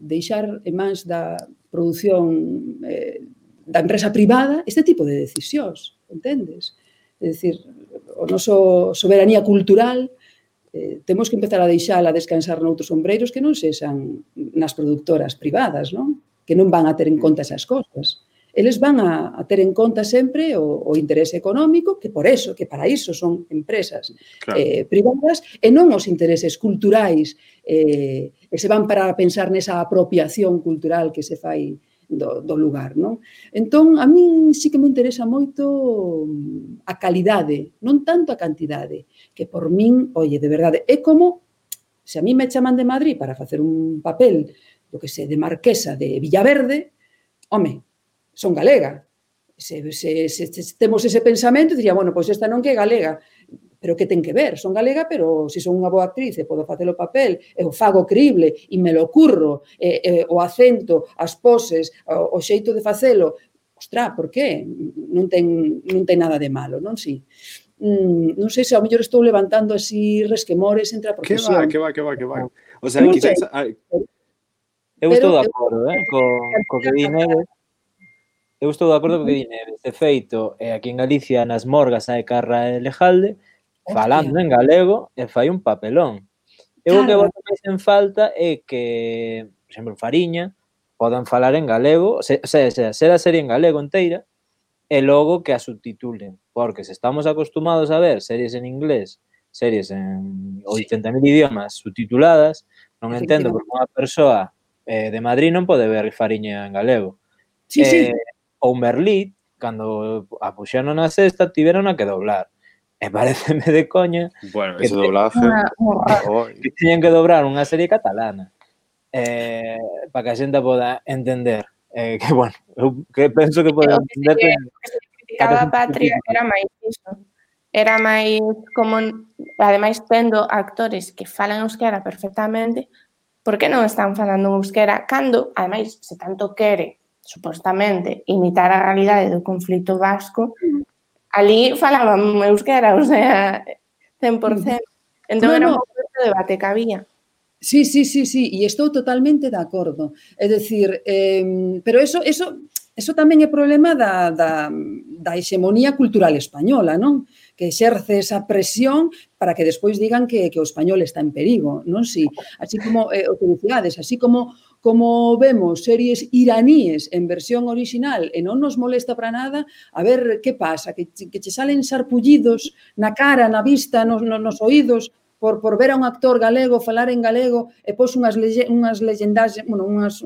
deixar en mans da produción da empresa privada este tipo de decisións, entendes? É dicir, o noso soberanía cultural temos que empezar a deixala descansar noutros ombreiros que non sexan nas productoras privadas, non? Que non van a ter en conta esas cosas. Eles van a ter en conta sempre o interese económico, que para iso son empresas privadas, e non os intereses culturais, e se van para pensar nesa apropiación cultural que se fai do lugar, non? Entón, a min sí que me interesa moito a calidade, non tanto a cantidade, que por min, oye, de verdade, é como se a mí me chaman de Madrid para facer un papel, do que sei, de marquesa de Villaverde, home, son galega. Se temos ese pensamento, diría, bueno, pois esta non que é galega, pero que ten que ver? Son galega, pero se son unha boa actriz e podo facer o papel, e o fago crible, e me lo curro, o acento, as poses, o xeito de facelo, ostra, por que? Non ten nada de malo, non? Si. Non sei se ao mellor estou levantando así resquemores entre a profesión. Que va. O sea, quizás... Eu estou de acordo, co que di Neves. Eu estou de acordo co que di Neves. De feito, aquí en Galicia, nas morgas hai Carra e Lejalde, falando en galego, e fai un papelón. Eu o que boto máis en falta é que, por exemplo, Fariña, podan falar en galego, ser a serie en galego inteira, e logo que a subtitulen. Porque se estamos acostumados a ver series en inglés, series en 80.000 idiomas subtituladas, non entendo porque unha persoa de Madrid non pode ver Fariña en galego. Sí. Ou Merlit, cando a puxeron na sexta, tiveron a que doblar. E pareceme de coña que ese doblaje que teñen que dobrar unha serie catalana para que a xente poda entender que, bueno, eu que penso que pode entender que se criticaba a Patria era máis iso, era máis como, ademais tendo actores que falan euskera perfectamente, por que non están falando euskera cando, ademais, se tanto quere supostamente imitar a realidade do conflito vasco, ali falaban euskera, o sea, 100%. Entón era un pouco de debate que había. Sí, e estou totalmente de acordo. É dicir, pero eso tamén é problema da hexemonía cultural española, non? Que exerce esa presión para que despois digan que o español está en perigo, non? Si, así como, o que dicíades, así como vemos series iraníes en versión original e non nos molesta para nada, a ver que pasa, que che salen sarpullidos na cara, na vista, nos oídos, por ver a un actor galego falar en galego e pos unhas leyendas, bueno, uns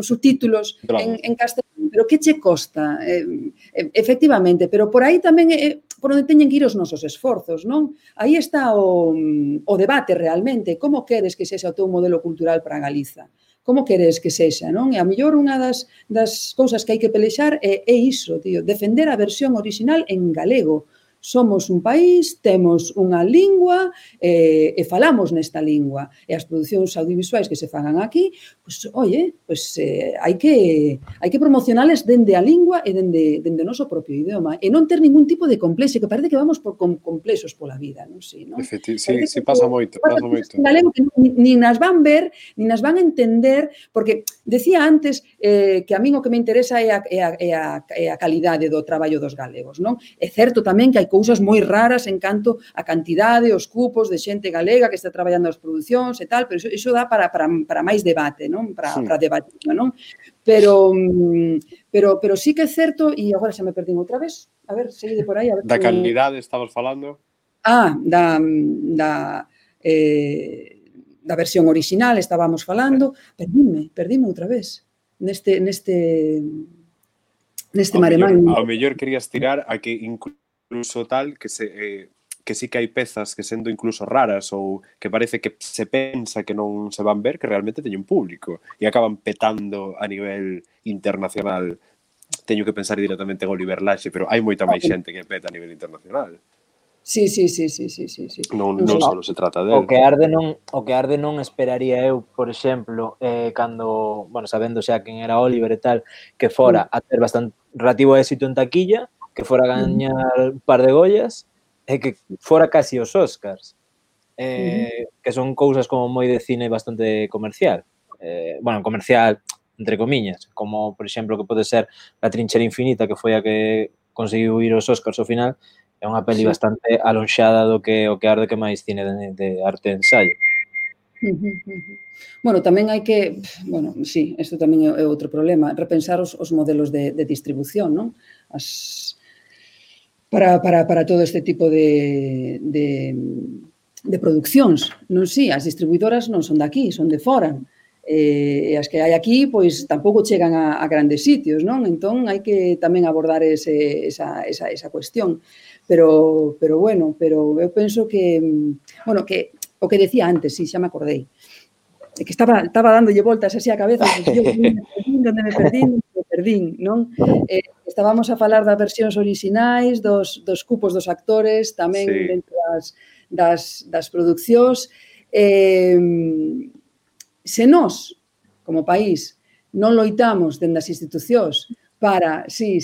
subtítulos en castelán, pero que che costa? Efectivamente, pero por aí tamén é por onde teñen que ir os nosos esforzos, non? Aí está o debate realmente, como queres que sexa o teu modelo cultural para Galiza? Como queres que sexa, non? E a mellor unha das cousas que hai que pelexar é iso, tío, defender a versión original en galego. Somos un país, temos unha lingua e falamos nesta lingua. E as producións audiovisuais que se fagan aquí, pois, hai que promocionales dende a lingua e dende o noso propio idioma. E non ter ningún tipo de complexo, que parece que vamos con complexos pola vida, non sei, non? Sí, pasa moito. Galego que nin nas van ver, nin nas van entender, porque decía antes que a min o que me interesa é a calidade do traballo dos galegos, non? É certo tamén que hai cousas moi raras en canto a cantidade, os cupos de xente galega que está traballando as producións e tal, pero iso dá para máis debate, non? Para debatir, non? Pero sí que é certo, e agora xa me perdín outra vez, a ver, seguide por aí. Da calidade estamos falando? Da versión original estábamos falando, perdíme outra vez neste maremán. Ao mellor querías tirar a que incluso tal que sí que hai pezas que sendo incluso raras ou que parece que se pensa que non se van ver, que realmente teñen público e acaban petando a nivel internacional. Teño que pensar directamente en Oliver Laxe, pero hai moita máis xente que peta a nivel internacional. Sí. Non só se trata del. O que arde non esperaría eu, por exemplo, cando, bueno, sabendo xa quen era Oliver e tal, que fora a ter bastante relativo éxito en taquilla, que fora a gañar un par de Goyas e que fora casi os Óscars. que son cousas como moi de cine bastante comercial. Bueno, comercial, entre comillas, como, por exemplo, que pode ser La trinchera infinita, que foi a que conseguiu ir aos Óscars ao final, é unha peli bastante alonxada do que o que arde que máis cine de arte de ensaio. Bueno, tamén hai que, bueno, sí, isto tamén é outro problema, repensar os modelos de distribución, non? Para todo este tipo de produccións, non si, as distribuidoras non son de aquí, son de fora, e as que hai aquí, pois, tampouco chegan a grandes sitios, non? Entón, hai que tamén abordar esa cuestión. Pero eu penso que, bueno, que o que decía antes, si, xa me acordei, que estaba dándolle voltas así a cabeza, onde me perdín, non? Estábamos a falar das versións orixinais, dos cupos dos actores, tamén dentro das producións. Se nós, como país, non loitamos dende as institucións para, sí,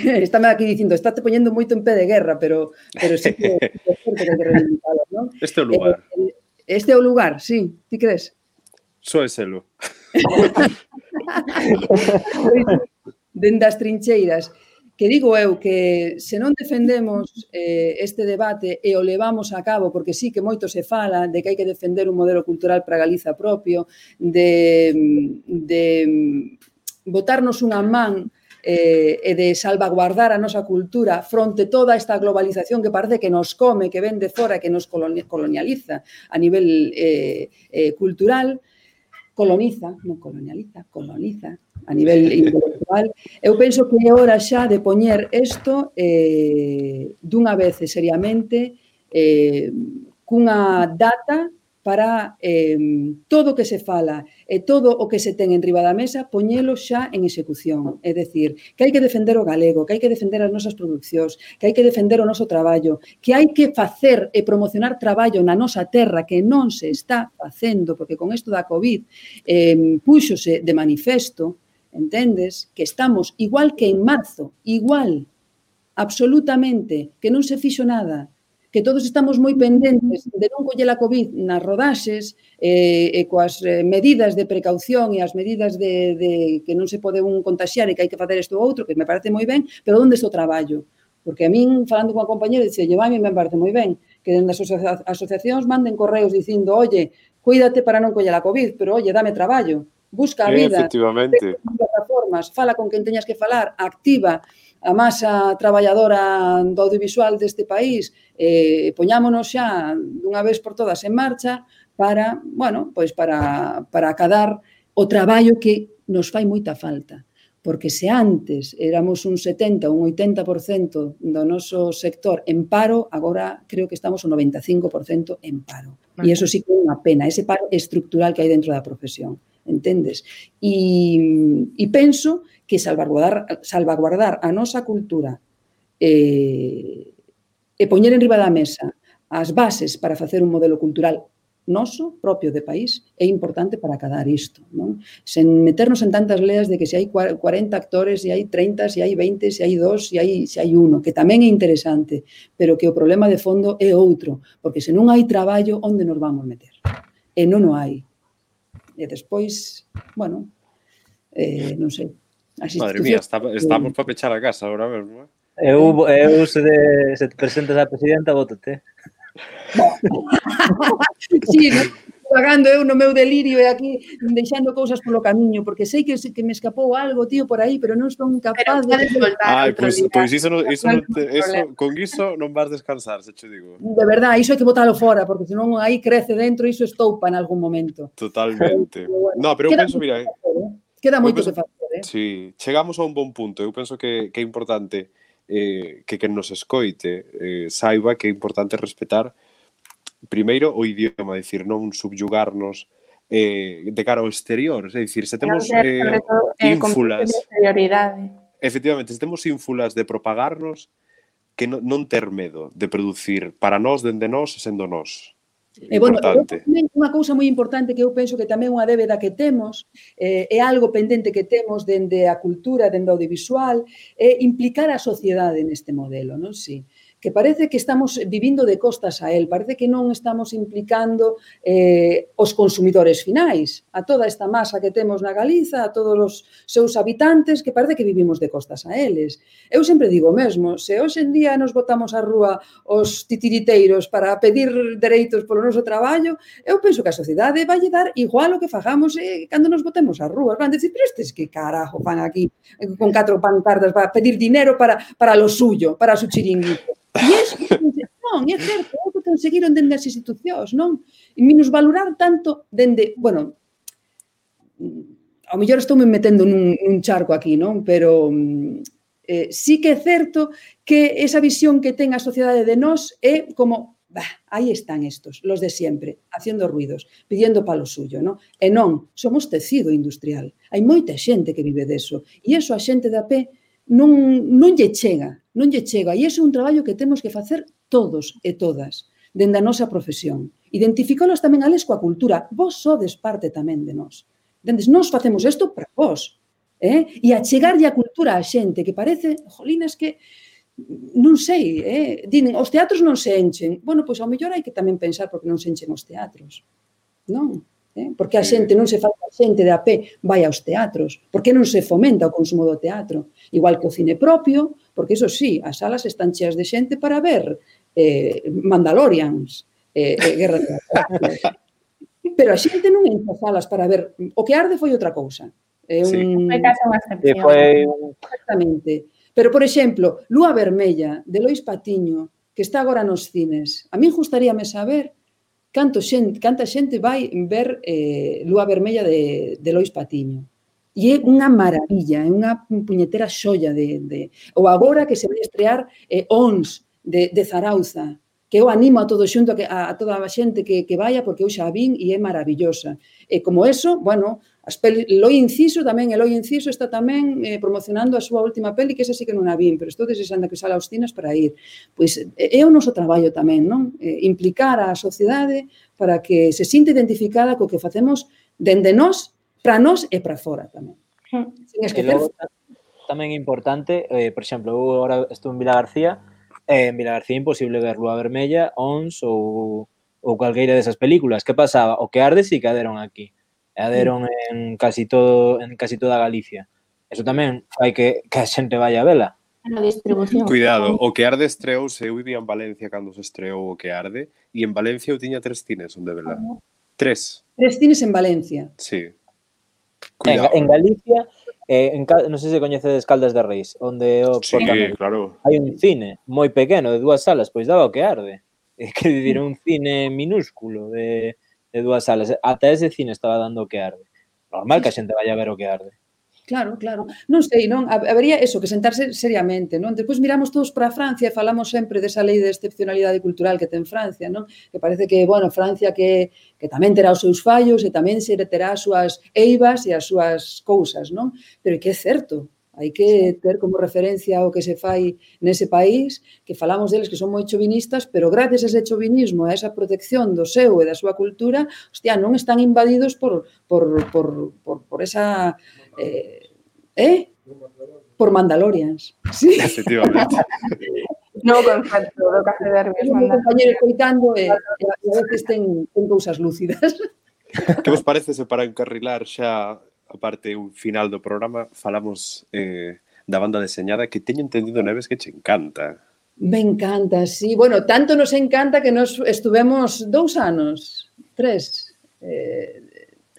estáme aquí dicindo, estáte poñendo moito en pé de guerra, pero sí que é certo que hai que reivindicalo, non? Este é o lugar. Este é o lugar, sí, ti crees? Só é selo. Dende as trincheiras, que digo eu que se non defendemos este debate e o levamos a cabo, porque sí que moito se fala de que hai que defender un modelo cultural para Galiza propio, de botarnos unha man e de salvaguardar a nosa cultura fronte toda esta globalización que parece que nos come, que ven de fora, que nos colonializa a nivel cultural, coloniza a nivel intelectual. Eu penso que é hora xa de poñer isto dunha vez seriamente cunha data para todo o que se fala e todo o que se ten enriba da mesa, poñelo xa en execución. É dicir, que hai que defender o galego, que hai que defender as nosas producións, que hai que defender o noso traballo, que hai que facer e promocionar traballo na nosa terra que non se está facendo, porque con isto da COVID púxose de manifesto, entendes, que estamos igual que en marzo, igual, absolutamente, que non se fixo nada, que todos estamos moi pendentes de non coller a COVID nas rodaxes e coas medidas de precaución e as medidas de que non se pode un contaxiar e que hai que facer isto ou outro, que me parece moi ben, pero onde está o traballo? Porque a min, falando con a compañera, dice, a mí me parece moi ben que dende as asociacións manden correos dicindo, oye, cuídate para non coller a COVID, pero, oye, dame traballo, busca a vida, efectivamente, plataformas, fala con quen teñas que falar, activa a masa traballadora do audiovisual deste país, poñámonos xa dunha vez por todas en marcha para, bueno, pois para acadar o traballo que nos fai moita falta. Porque se antes éramos un 70, un 80% do noso sector en paro, agora creo que estamos un 95% en paro. E iso sí que é unha pena, ese paro estructural que hai dentro da profesión. Entendes? E penso que salvaguardar a nosa cultura e poñer en riba da mesa as bases para facer un modelo cultural noso, propio de país, é importante para acadar isto, non? Sen meternos en tantas leas de que se hai 40 actores, se hai 30, se hai 20, se hai 2, se hai 1, que tamén é interesante, pero que o problema de fondo é outro, porque se non hai traballo, onde nos vamos meter? E non o hai. E despois, bueno, non sei. Madre mía, estamos para pechar a casa agora mesmo. Eu se te presentas a presidenta, vótate. Sí, pagando eu no meu delirio e aquí deixando cousas polo camiño, porque sei que me escapou algo, tío, por aí, pero non son capaz de... Ai, pois con iso non vas descansar, se che digo. De verdad, iso hai que botalo fora, porque senón aí crece dentro, iso estoupa en algún momento. Totalmente. No, pero eu penso, mira... Queda moito que facer, Sí, chegamos a un bon punto. Eu penso que é importante que quen nos escoite saiba que é importante respetar primeiro o idioma, dicir, non subyugarnos de cara ao exterior, é dicir, se temos ínfulas, efectivamente, se temos ínfulas de propagarnos, que non ter medo de producir para nós, dende nós, sendo nós. E, bueno, unha cousa moi importante que eu penso que tamén é unha débeda que temos, é algo pendente que temos dende a cultura, dende o audiovisual, é implicar a sociedade neste modelo, non? Si. que parece que estamos vivindo de costas a él, parece que non estamos implicando os consumidores finais, a toda esta masa que temos na Galiza, a todos os seus habitantes, que parece que vivimos de costas a eles. Eu sempre digo mesmo, se hoxe en día nos botamos á rúa os titiriteiros para pedir dereitos polo noso traballo, eu penso que a sociedade vai dar igual o que fagamos cando nos botemos á rúa. Van decir, pero estes que carajo van aquí con 4 pancartas para pedir dinero para lo suyo, para su chiringuito. E non, é certo, é o que conseguiron dende as institucións, non? E minusvalorar tanto dende, bueno, ao mellor estou me metendo nun charco aquí, non? Pero sí que é certo que esa visión que ten a sociedade de nós é como, aí están estos, los de siempre, haciendo ruidos, pidiendo palo suyo, non? E non, somos tecido industrial. Hai moita xente que vive deso. E iso a xente de a pé non lle chega. Non lle chega. E ese é un traballo que temos que facer todos e todas, dende a nosa profesión. Identificolos tamén ales coa cultura. Vos sodes parte tamén de nós. Dendes, nós facemos isto para vos. E achegarlle a cultura a xente que parece, jolinas, que non sei, dinen, os teatros non se enchen. Bueno, pois ao mellor hai que tamén pensar porque non se enchen os teatros. Non? Porque a xente non se fai a xente de a pé vai aos teatros, porque non se fomenta o consumo do teatro, igual que o cine propio, porque iso sí, as salas están cheas de xente para ver Mandalorians, Guerra de Galaxias. Pero a xente non entra a salas para ver, o que arde foi outra cousa. Foi case unha excepción. Exactamente. Pero, por exemplo, Lúa Vermella, de Lois Patiño, que está agora nos cines, a mí gustaríame saber canta xente vai ver Lúa Vermella de Lois Patiño. E é unha maravilla, é unha puñetera xoia ou agora que se vai estrear Ons de Zarauza, que eu animo a todo xunto, a toda a xente que vaya, porque eu xa vin e é maravillosa. E como eso, bueno, Eloi Inciso tamén, Eloi Inciso está tamén promocionando a súa última peli, que esa sí que non a vin, pero estou desexando que sala aos cines para ir. Pois é o noso traballo tamén, non? Implicar a sociedade para que se sinta identificada co que facemos dende nós, para nós e para fora tamén. Sin esquecer. Tamén é importante, por exemplo, eu agora estou en Vilagarcía, en Vilagarcía é imposible ver Lúa Vermella, Ons ou calqueira desas películas. Que pasaba? O que arde sí que aderon aquí. Aderon en casi toda Galicia. Eso tamén fai que a xente vaya a vela. A distribución. Cuidado, o que arde estreouse, eu vivía en Valencia cando se estreou o que arde, e en Valencia eu tiña 3 cines onde vela. 3. 3 cines en Valencia. Sí. Cuidado. En Galicia, non sei se coñecedes Caldas de Reis, onde sí, claro. Hai un cine moi pequeno de 2 salas, pois daba o que arde. Que dicir, un cine minúsculo de 2 salas. Ata ese cine estaba dando o que arde. Normal que a xente vaya a ver o que arde. Claro, claro. Non sei, non? Habería eso, que sentarse seriamente, non? Despois miramos todos para Francia e falamos sempre desa lei de excepcionalidade cultural que ten Francia, non? Que parece que, bueno, Francia que tamén terá os seus fallos e tamén se terá as súas eivas e as súas cousas, non? Pero que é certo, hai que ter como referencia o que se fai nese país, que falamos deles que son moi chovinistas, pero gracias a ese chovinismo, a esa protección do seu e da súa cultura, hostia, non están invadidos por esa... por Mandalorians. Sí. Efectivamente. No concepto do Café Derbi. Un compañero coitando e a veces ten cousas lúcidas. Que vos parece se para encarrilar xa a parte un final do programa falamos da banda deseñada que teño entendido, Neves, que che encanta. Me encanta, sí. Bueno, tanto nos encanta que nos estuvemos 2 anos,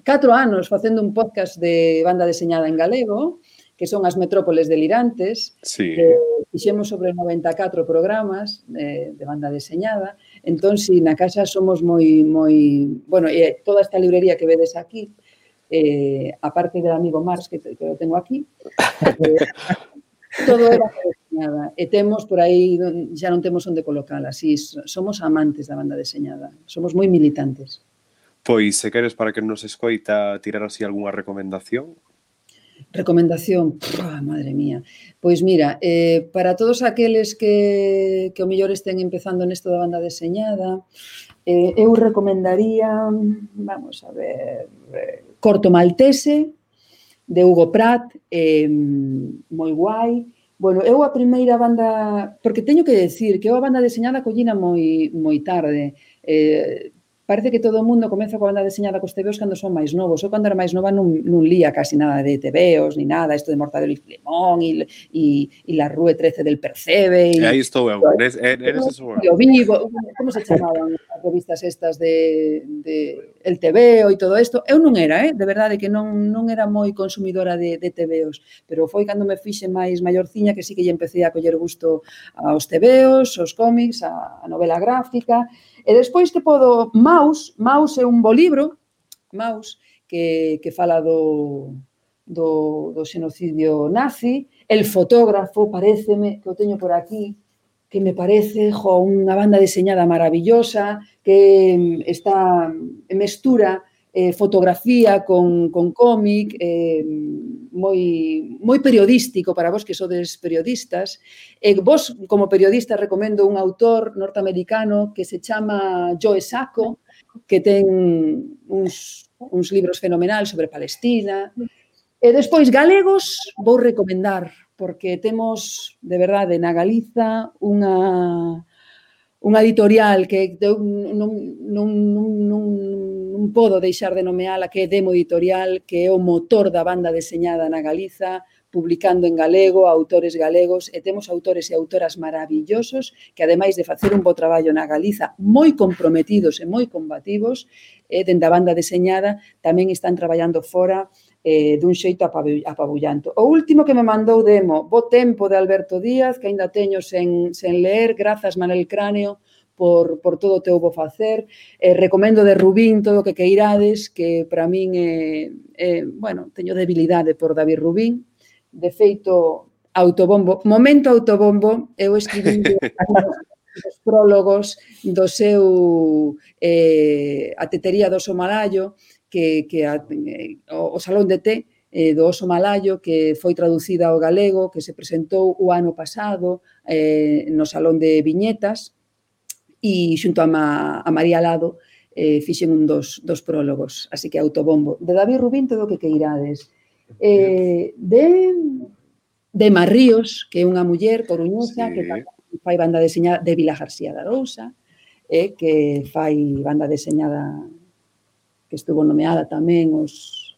4 anos facendo un podcast de banda deseñada en galego, que son as metrópoles delirantes. Sí. Fixemos sobre 94 programas de banda deseñada. Entón, si na casa somos moi... Bueno, e toda esta librería que vedes aquí, aparte del amigo Mars, que lo tengo aquí, todo era deseñada. E temos por aí, xa non temos onde colocala. Sí, somos amantes da banda deseñada. Somos moi militantes. Pois, se queres para que nos escoita tirar así algunha recomendación. Recomendación, madre mía. Pois mira, para todos aqueles que o mellor estén empezando nesto da banda deseñada, eu recomendaría, vamos a ver, Corto Maltese, de Hugo Pratt, moi guai, Bueno, eu a primeira banda, porque teño que decir que eu a banda deseñada collina moi tarde. Parece que todo o mundo comeza coa banda deseñada cos tebeos cando son máis novos. Eu cando era máis nova non lía casi nada de tebeos, ni nada, isto de Mortadelo y Filemón e La Rue 13 del Percebe. E aí estou eu, eres eso eu. O Vivo, como se chamaban as revistas estas de El Tebeo e todo isto? Eu non era, de verdade que non era moi consumidora de tebeos, pero foi cando me fixe máis maiorciña que sí que lle empecé a coller gusto aos tebeos, aos cómics, a novela gráfica. E despois que podo... Maus é un bo libro, Maus, que fala do xenocidio nazi. El fotógrafo, paréceme, que o teño por aquí, que me parece unha banda deseñada maravillosa, que mestura fotografía con cómic, moi periodístico para vos que sodes periodistas. Vos, como periodista, recomendo un autor norteamericano que se chama Joe Sacco, que ten uns libros fenomenais sobre Palestina. E despois, galegos, vou recomendar, porque temos, de verdade, na Galiza unha editorial que non podo deixar de nomeala, que é Demo Editorial, que é o motor da banda deseñada na Galiza, publicando en galego, autores galegos, e temos autores e autoras maravillosos que, ademais de facer un bo traballo na Galiza, moi comprometidos e moi combativos, dende a banda deseñada, tamén están traballando fora dun xeito apabullanto. O último que me mandou Demo, Bo tempo, de Alberto Díaz, que ainda teño sen ler, grazas Manel Cráneo por todo o teu bo facer. Recomendo de Rubín todo o que queirades, que para min bueno, teño debilidade por David Rubín. De feito, momento autobombo, eu escribí os prólogos do seu A tetería do oso malayo, que o Salón de Té do oso malayo, que foi traducida ao galego, que se presentou o ano pasado no Salón de Viñetas, e xunto a María Lado fixen un dos prólogos, así que autobombo. De David Rubín todo o que queirades. De Marríos, que é unha muller coruñesa, que fai banda deseñada, de Vila García de Arousa, que fai banda deseñada que estuvo nomeada tamén os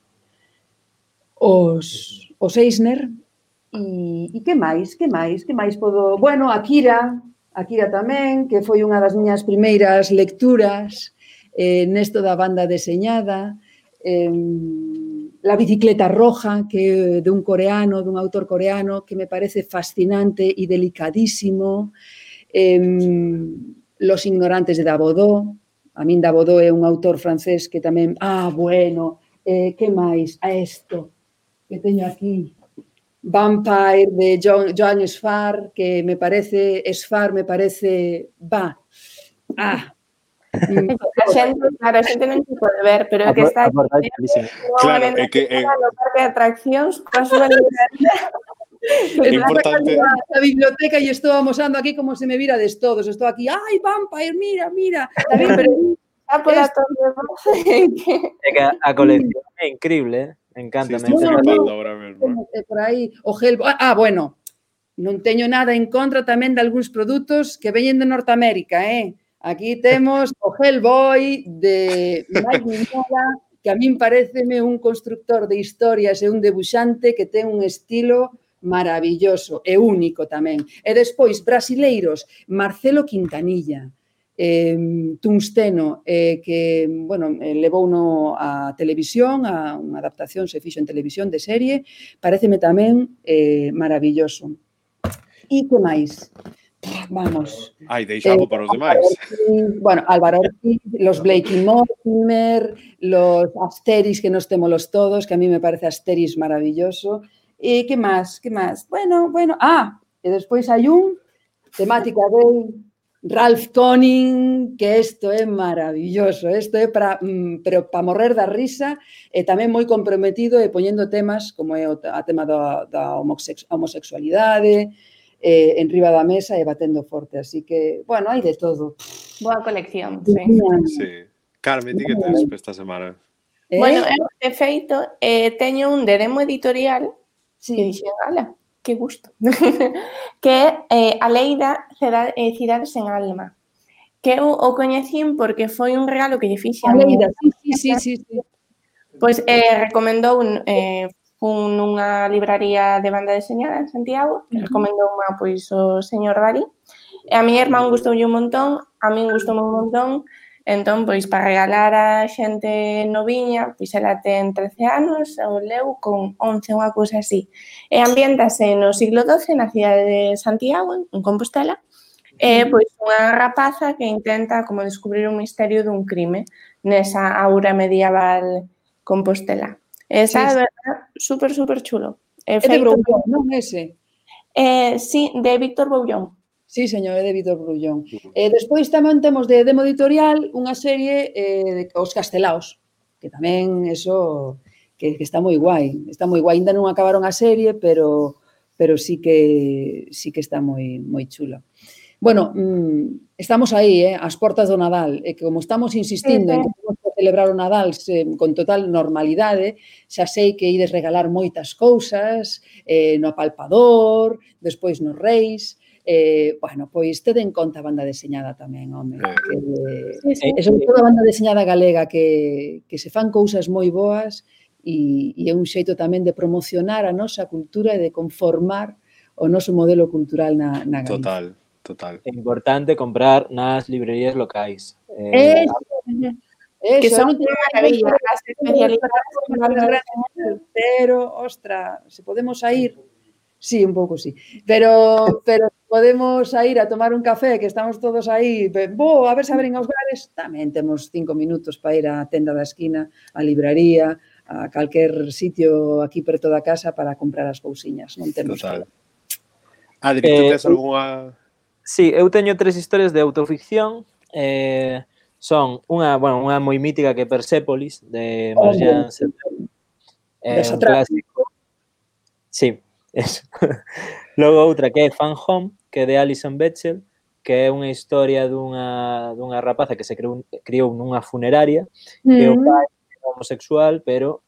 Eisner. E que máis podo... Bueno, Akira tamén, que foi unha das miñas primeiras lecturas nesto da banda deseñada. La bicicleta roja, que é dun autor coreano, que me parece fascinante e delicadísimo. Los ignorantes de Dabodó. A min Dabodó é un autor francés que tamén... bueno, que máis? Isto que teño aquí. Vampire, de Joan Sfar, que me parece... A xente non se pode ver, pero é que está aquí. Claro, é que... no parque de atraccións, coa súa librería. É importante... A biblioteca e estou amosando aquí como se me virades todos. Estou aquí, ai, Vampire, mira. Tamén, pero... É que a colección é increíble, encanta. Estou flipando ahora mesmo. Por aí, o Hellboy... bueno, non teño nada en contra tamén de algúns produtos que veñen de Norteamérica, Aquí temos o Hellboy de Mike Mignola, que a min pareceme un constructor de historias e un debuxante que ten un estilo maravilloso e único tamén. E despois, brasileiros, Marcelo Quintanilla, Tungsteno, que, bueno, levouno a televisión, a unha adaptación se fixo en televisión de serie, pareceme tamén maravilloso. E que máis? Vamos. Deixamos para os demais. Bueno, Álvaro Ortiz, los Blake y Mortimer, los Asterix, que nos témolos todos, que a mí me parece Asterix maravilloso. E que máis? Bueno. E despois hai un temática de Ralph Koenig, que isto é maravilloso. Isto é para morrer da risa e tamén moi comprometido e poñendo temas como é a tema da homosexualidade, en riba da mesa e batendo forte. Así que, bueno, hai de todo. Boa colección, sí. Sí. Carmen, ti que tens esta semana? Bueno, eu, de feito, teño un de Demo Editorial que dixen, ala, que gusto, que é A lei da cidade sen alma, que eu o coñecín porque foi un regalo que lle fixe a Aleida, miña. sí. Pois recomendou nunha libraría de banda deseñada en Santiago, que recomendou unha pois o señor Darí, e a miña irmán gustoulle un montón, a min gustoume un montón, entón, pois, para regalar a xente noviña, pois ela ten 13 anos, eu leu con 11, unha cousa así. E ambiéntase no siglo XII na cidade de Santiago, en Compostela, e, pois, unha rapaza que intenta como descubrir un misterio dun crime nesa aura medieval Compostela. Está, de verdad, super chulo. É de Broullón, non ese? Sí, de Víctor Boullón. Sí, señor, é de Víctor Broullón. Despois tamén temos de Demo Editorial unha serie de Os Castelaos, que tamén eso que está moi guai. Está moi guai. Ainda non acabaron a serie, pero sí que está moi chulo. Bueno, estamos aí, ás portas do Nadal, e como estamos insistindo en que temos que celebrar o Nadal con total normalidade, xa sei que ides regalar moitas cousas, no apalpador, despois nos Reis, bueno, pois tede en conta a banda deseñada tamén, home. E sobre todo a banda deseñada galega, que se fan cousas moi boas e é un xeito tamén de promocionar a nosa cultura e de conformar o noso modelo cultural na Galicia. Total. É importante comprar nas librerías locais. Que son unha maravilla, as especialidades. Pero, ostra, se podemos ir, sí, un pouco sí, pero podemos ir a tomar un café, que estamos todos aí, a ver se abren os bares, tamén temos 5 minutos para ir á tenda da esquina, á libraría, a calquer sitio aquí preto da casa para comprar as cousiñas, non temos Total. Adri, tú tes algunha... Sí, eu teño 3 historias de autoficción. Son unha moi mítica que é Persépolis, de Marjane Satrapi. Un clásico. Sí, eso. Logo outra que é Fan Home, que é de Alison Bechdel, que é unha historia dunha rapaza que se criou nunha funeraria, que o pai era homosexual, pero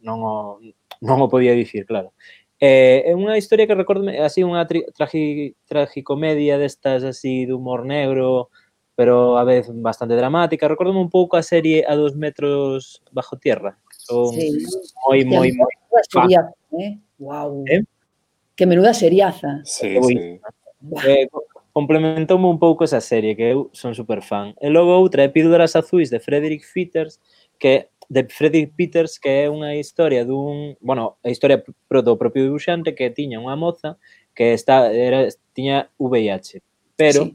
non o podía dicir, claro. É unha historia que recordo así unha tragicomedia destas así de humor negro, pero a vez bastante dramática. Recórdome un pouco a serie A 2 metros bajo tierra. Son moi fan. Wow. Que menuda seriaza. Sí. Complementoume un pouco esa serie, que eu son super fan. E logo outra é Píldoras azuis de Frederick Peters, que é unha historia a historia do propio dibuixante, que tiña unha moza que tiña VIH, pero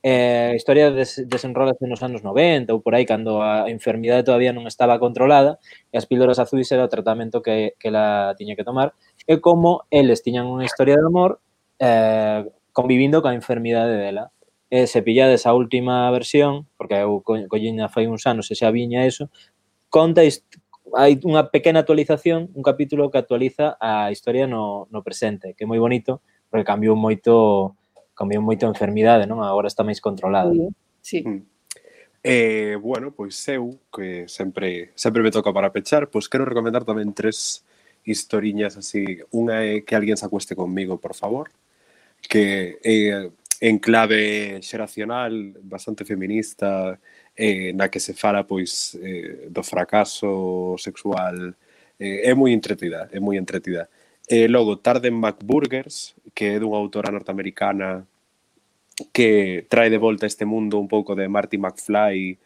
a historia desenrólase nos anos 90 ou por aí, cando a enfermidade todavía non estaba controlada, e as píldoras azuis era o tratamento que ela tiña que tomar, e como eles tiñan unha historia de amor convivindo coa enfermidade dela. E se pillades a última versión, porque eu collina fai uns anos e xa viña eso, hai unha pequena actualización, un capítulo que actualiza a historia no presente, que é moi bonito, porque cambiou moito a enfermidade, non? Agora está máis controlada. Sí. Bueno, pois eu, que sempre me toca para pechar, pois quero recomendar tamén 3 historiñas así. Unha é Que alguén se acueste conmigo, por favor, que en clave xeracional, bastante feminista, na que se fala pois do fracaso sexual, é moi entretida. Logo, Tarde en McBurgers, que é dunha autora norteamericana que trae de volta este mundo un pouco de Marty McFly,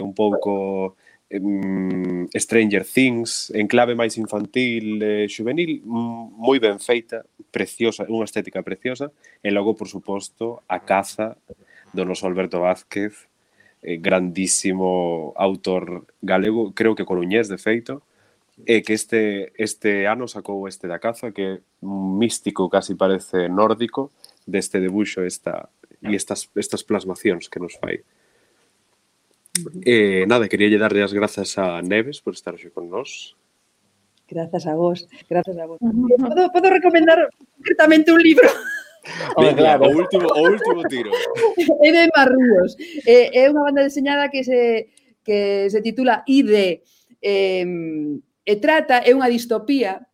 un pouco Stranger Things, en clave máis infantil, juvenil, moi ben feita, preciosa, unha estética preciosa, e logo, por suposto, A caza do noso Alberto Vázquez, grandísimo autor galego, creo que coruñés, de feito, e que este ano sacou este da caza, que é un místico, casi parece nórdico, deste debuxo e estas plasmacións que nos fai. Nada, quería darlle as grazas a Neves por estar hoxe con nós. Grazas a vos. Podo recomendar concretamente un libro? Venga, claro. o último tiro. É de Marrúos. É unha banda deseñada que se titula ID. É unha distopía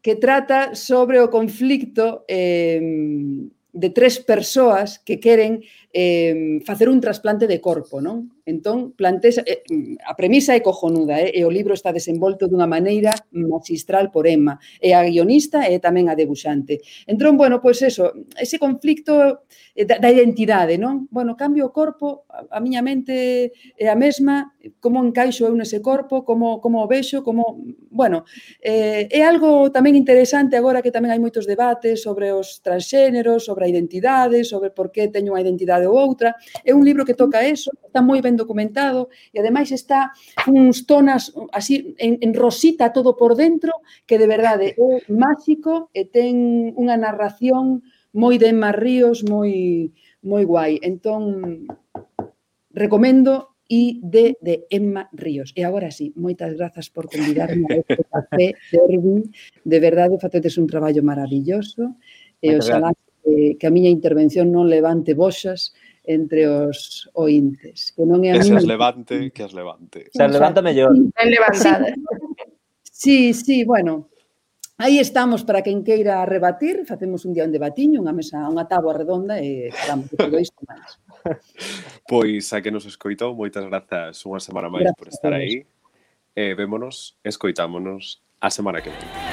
que trata sobre o conflicto de 3 persoas que queren facer un trasplante de corpo, non? Entón, a premisa é cojonuda, e o libro está desenvolto dunha maneira magistral por Emma, e a guionista e tamén a debuxante. Entón, bueno, pois eso, ese conflicto da identidade, non? Bueno, cambio o corpo, a miña mente é a mesma, como encaixo eu nese corpo, como o vexo, como... Bueno, é algo tamén interesante agora que tamén hai moitos debates sobre os transxéneros, sobre a identidade, sobre por que teño unha identidade ou outra. É un libro que toca eso, está moi ben documentado e ademais está uns tonas así en rosita todo por dentro que de verdade é máxico e ten unha narración moi de Emma Ríos, moi guai. Entón, recomendo ID de Emma Ríos. E agora sí, moitas grazas por convidarme a este café Derbi. De verdade, facedes un traballo maravilloso e oxalá que a miña intervención non levante boxas entre os ointes. Que non é a que miña... as levante, que as levante. Se as levanta mellor. Ben levantada. Sí, bueno, aí estamos para quen queira rebatir, facemos un día un debatiño, unha mesa, unha táboa redonda e falamos de todo isto máis. Pois a que nos escoitou, moitas grazas unha semana máis por estar aí. Vémonos, escoitámonos a semana que vem.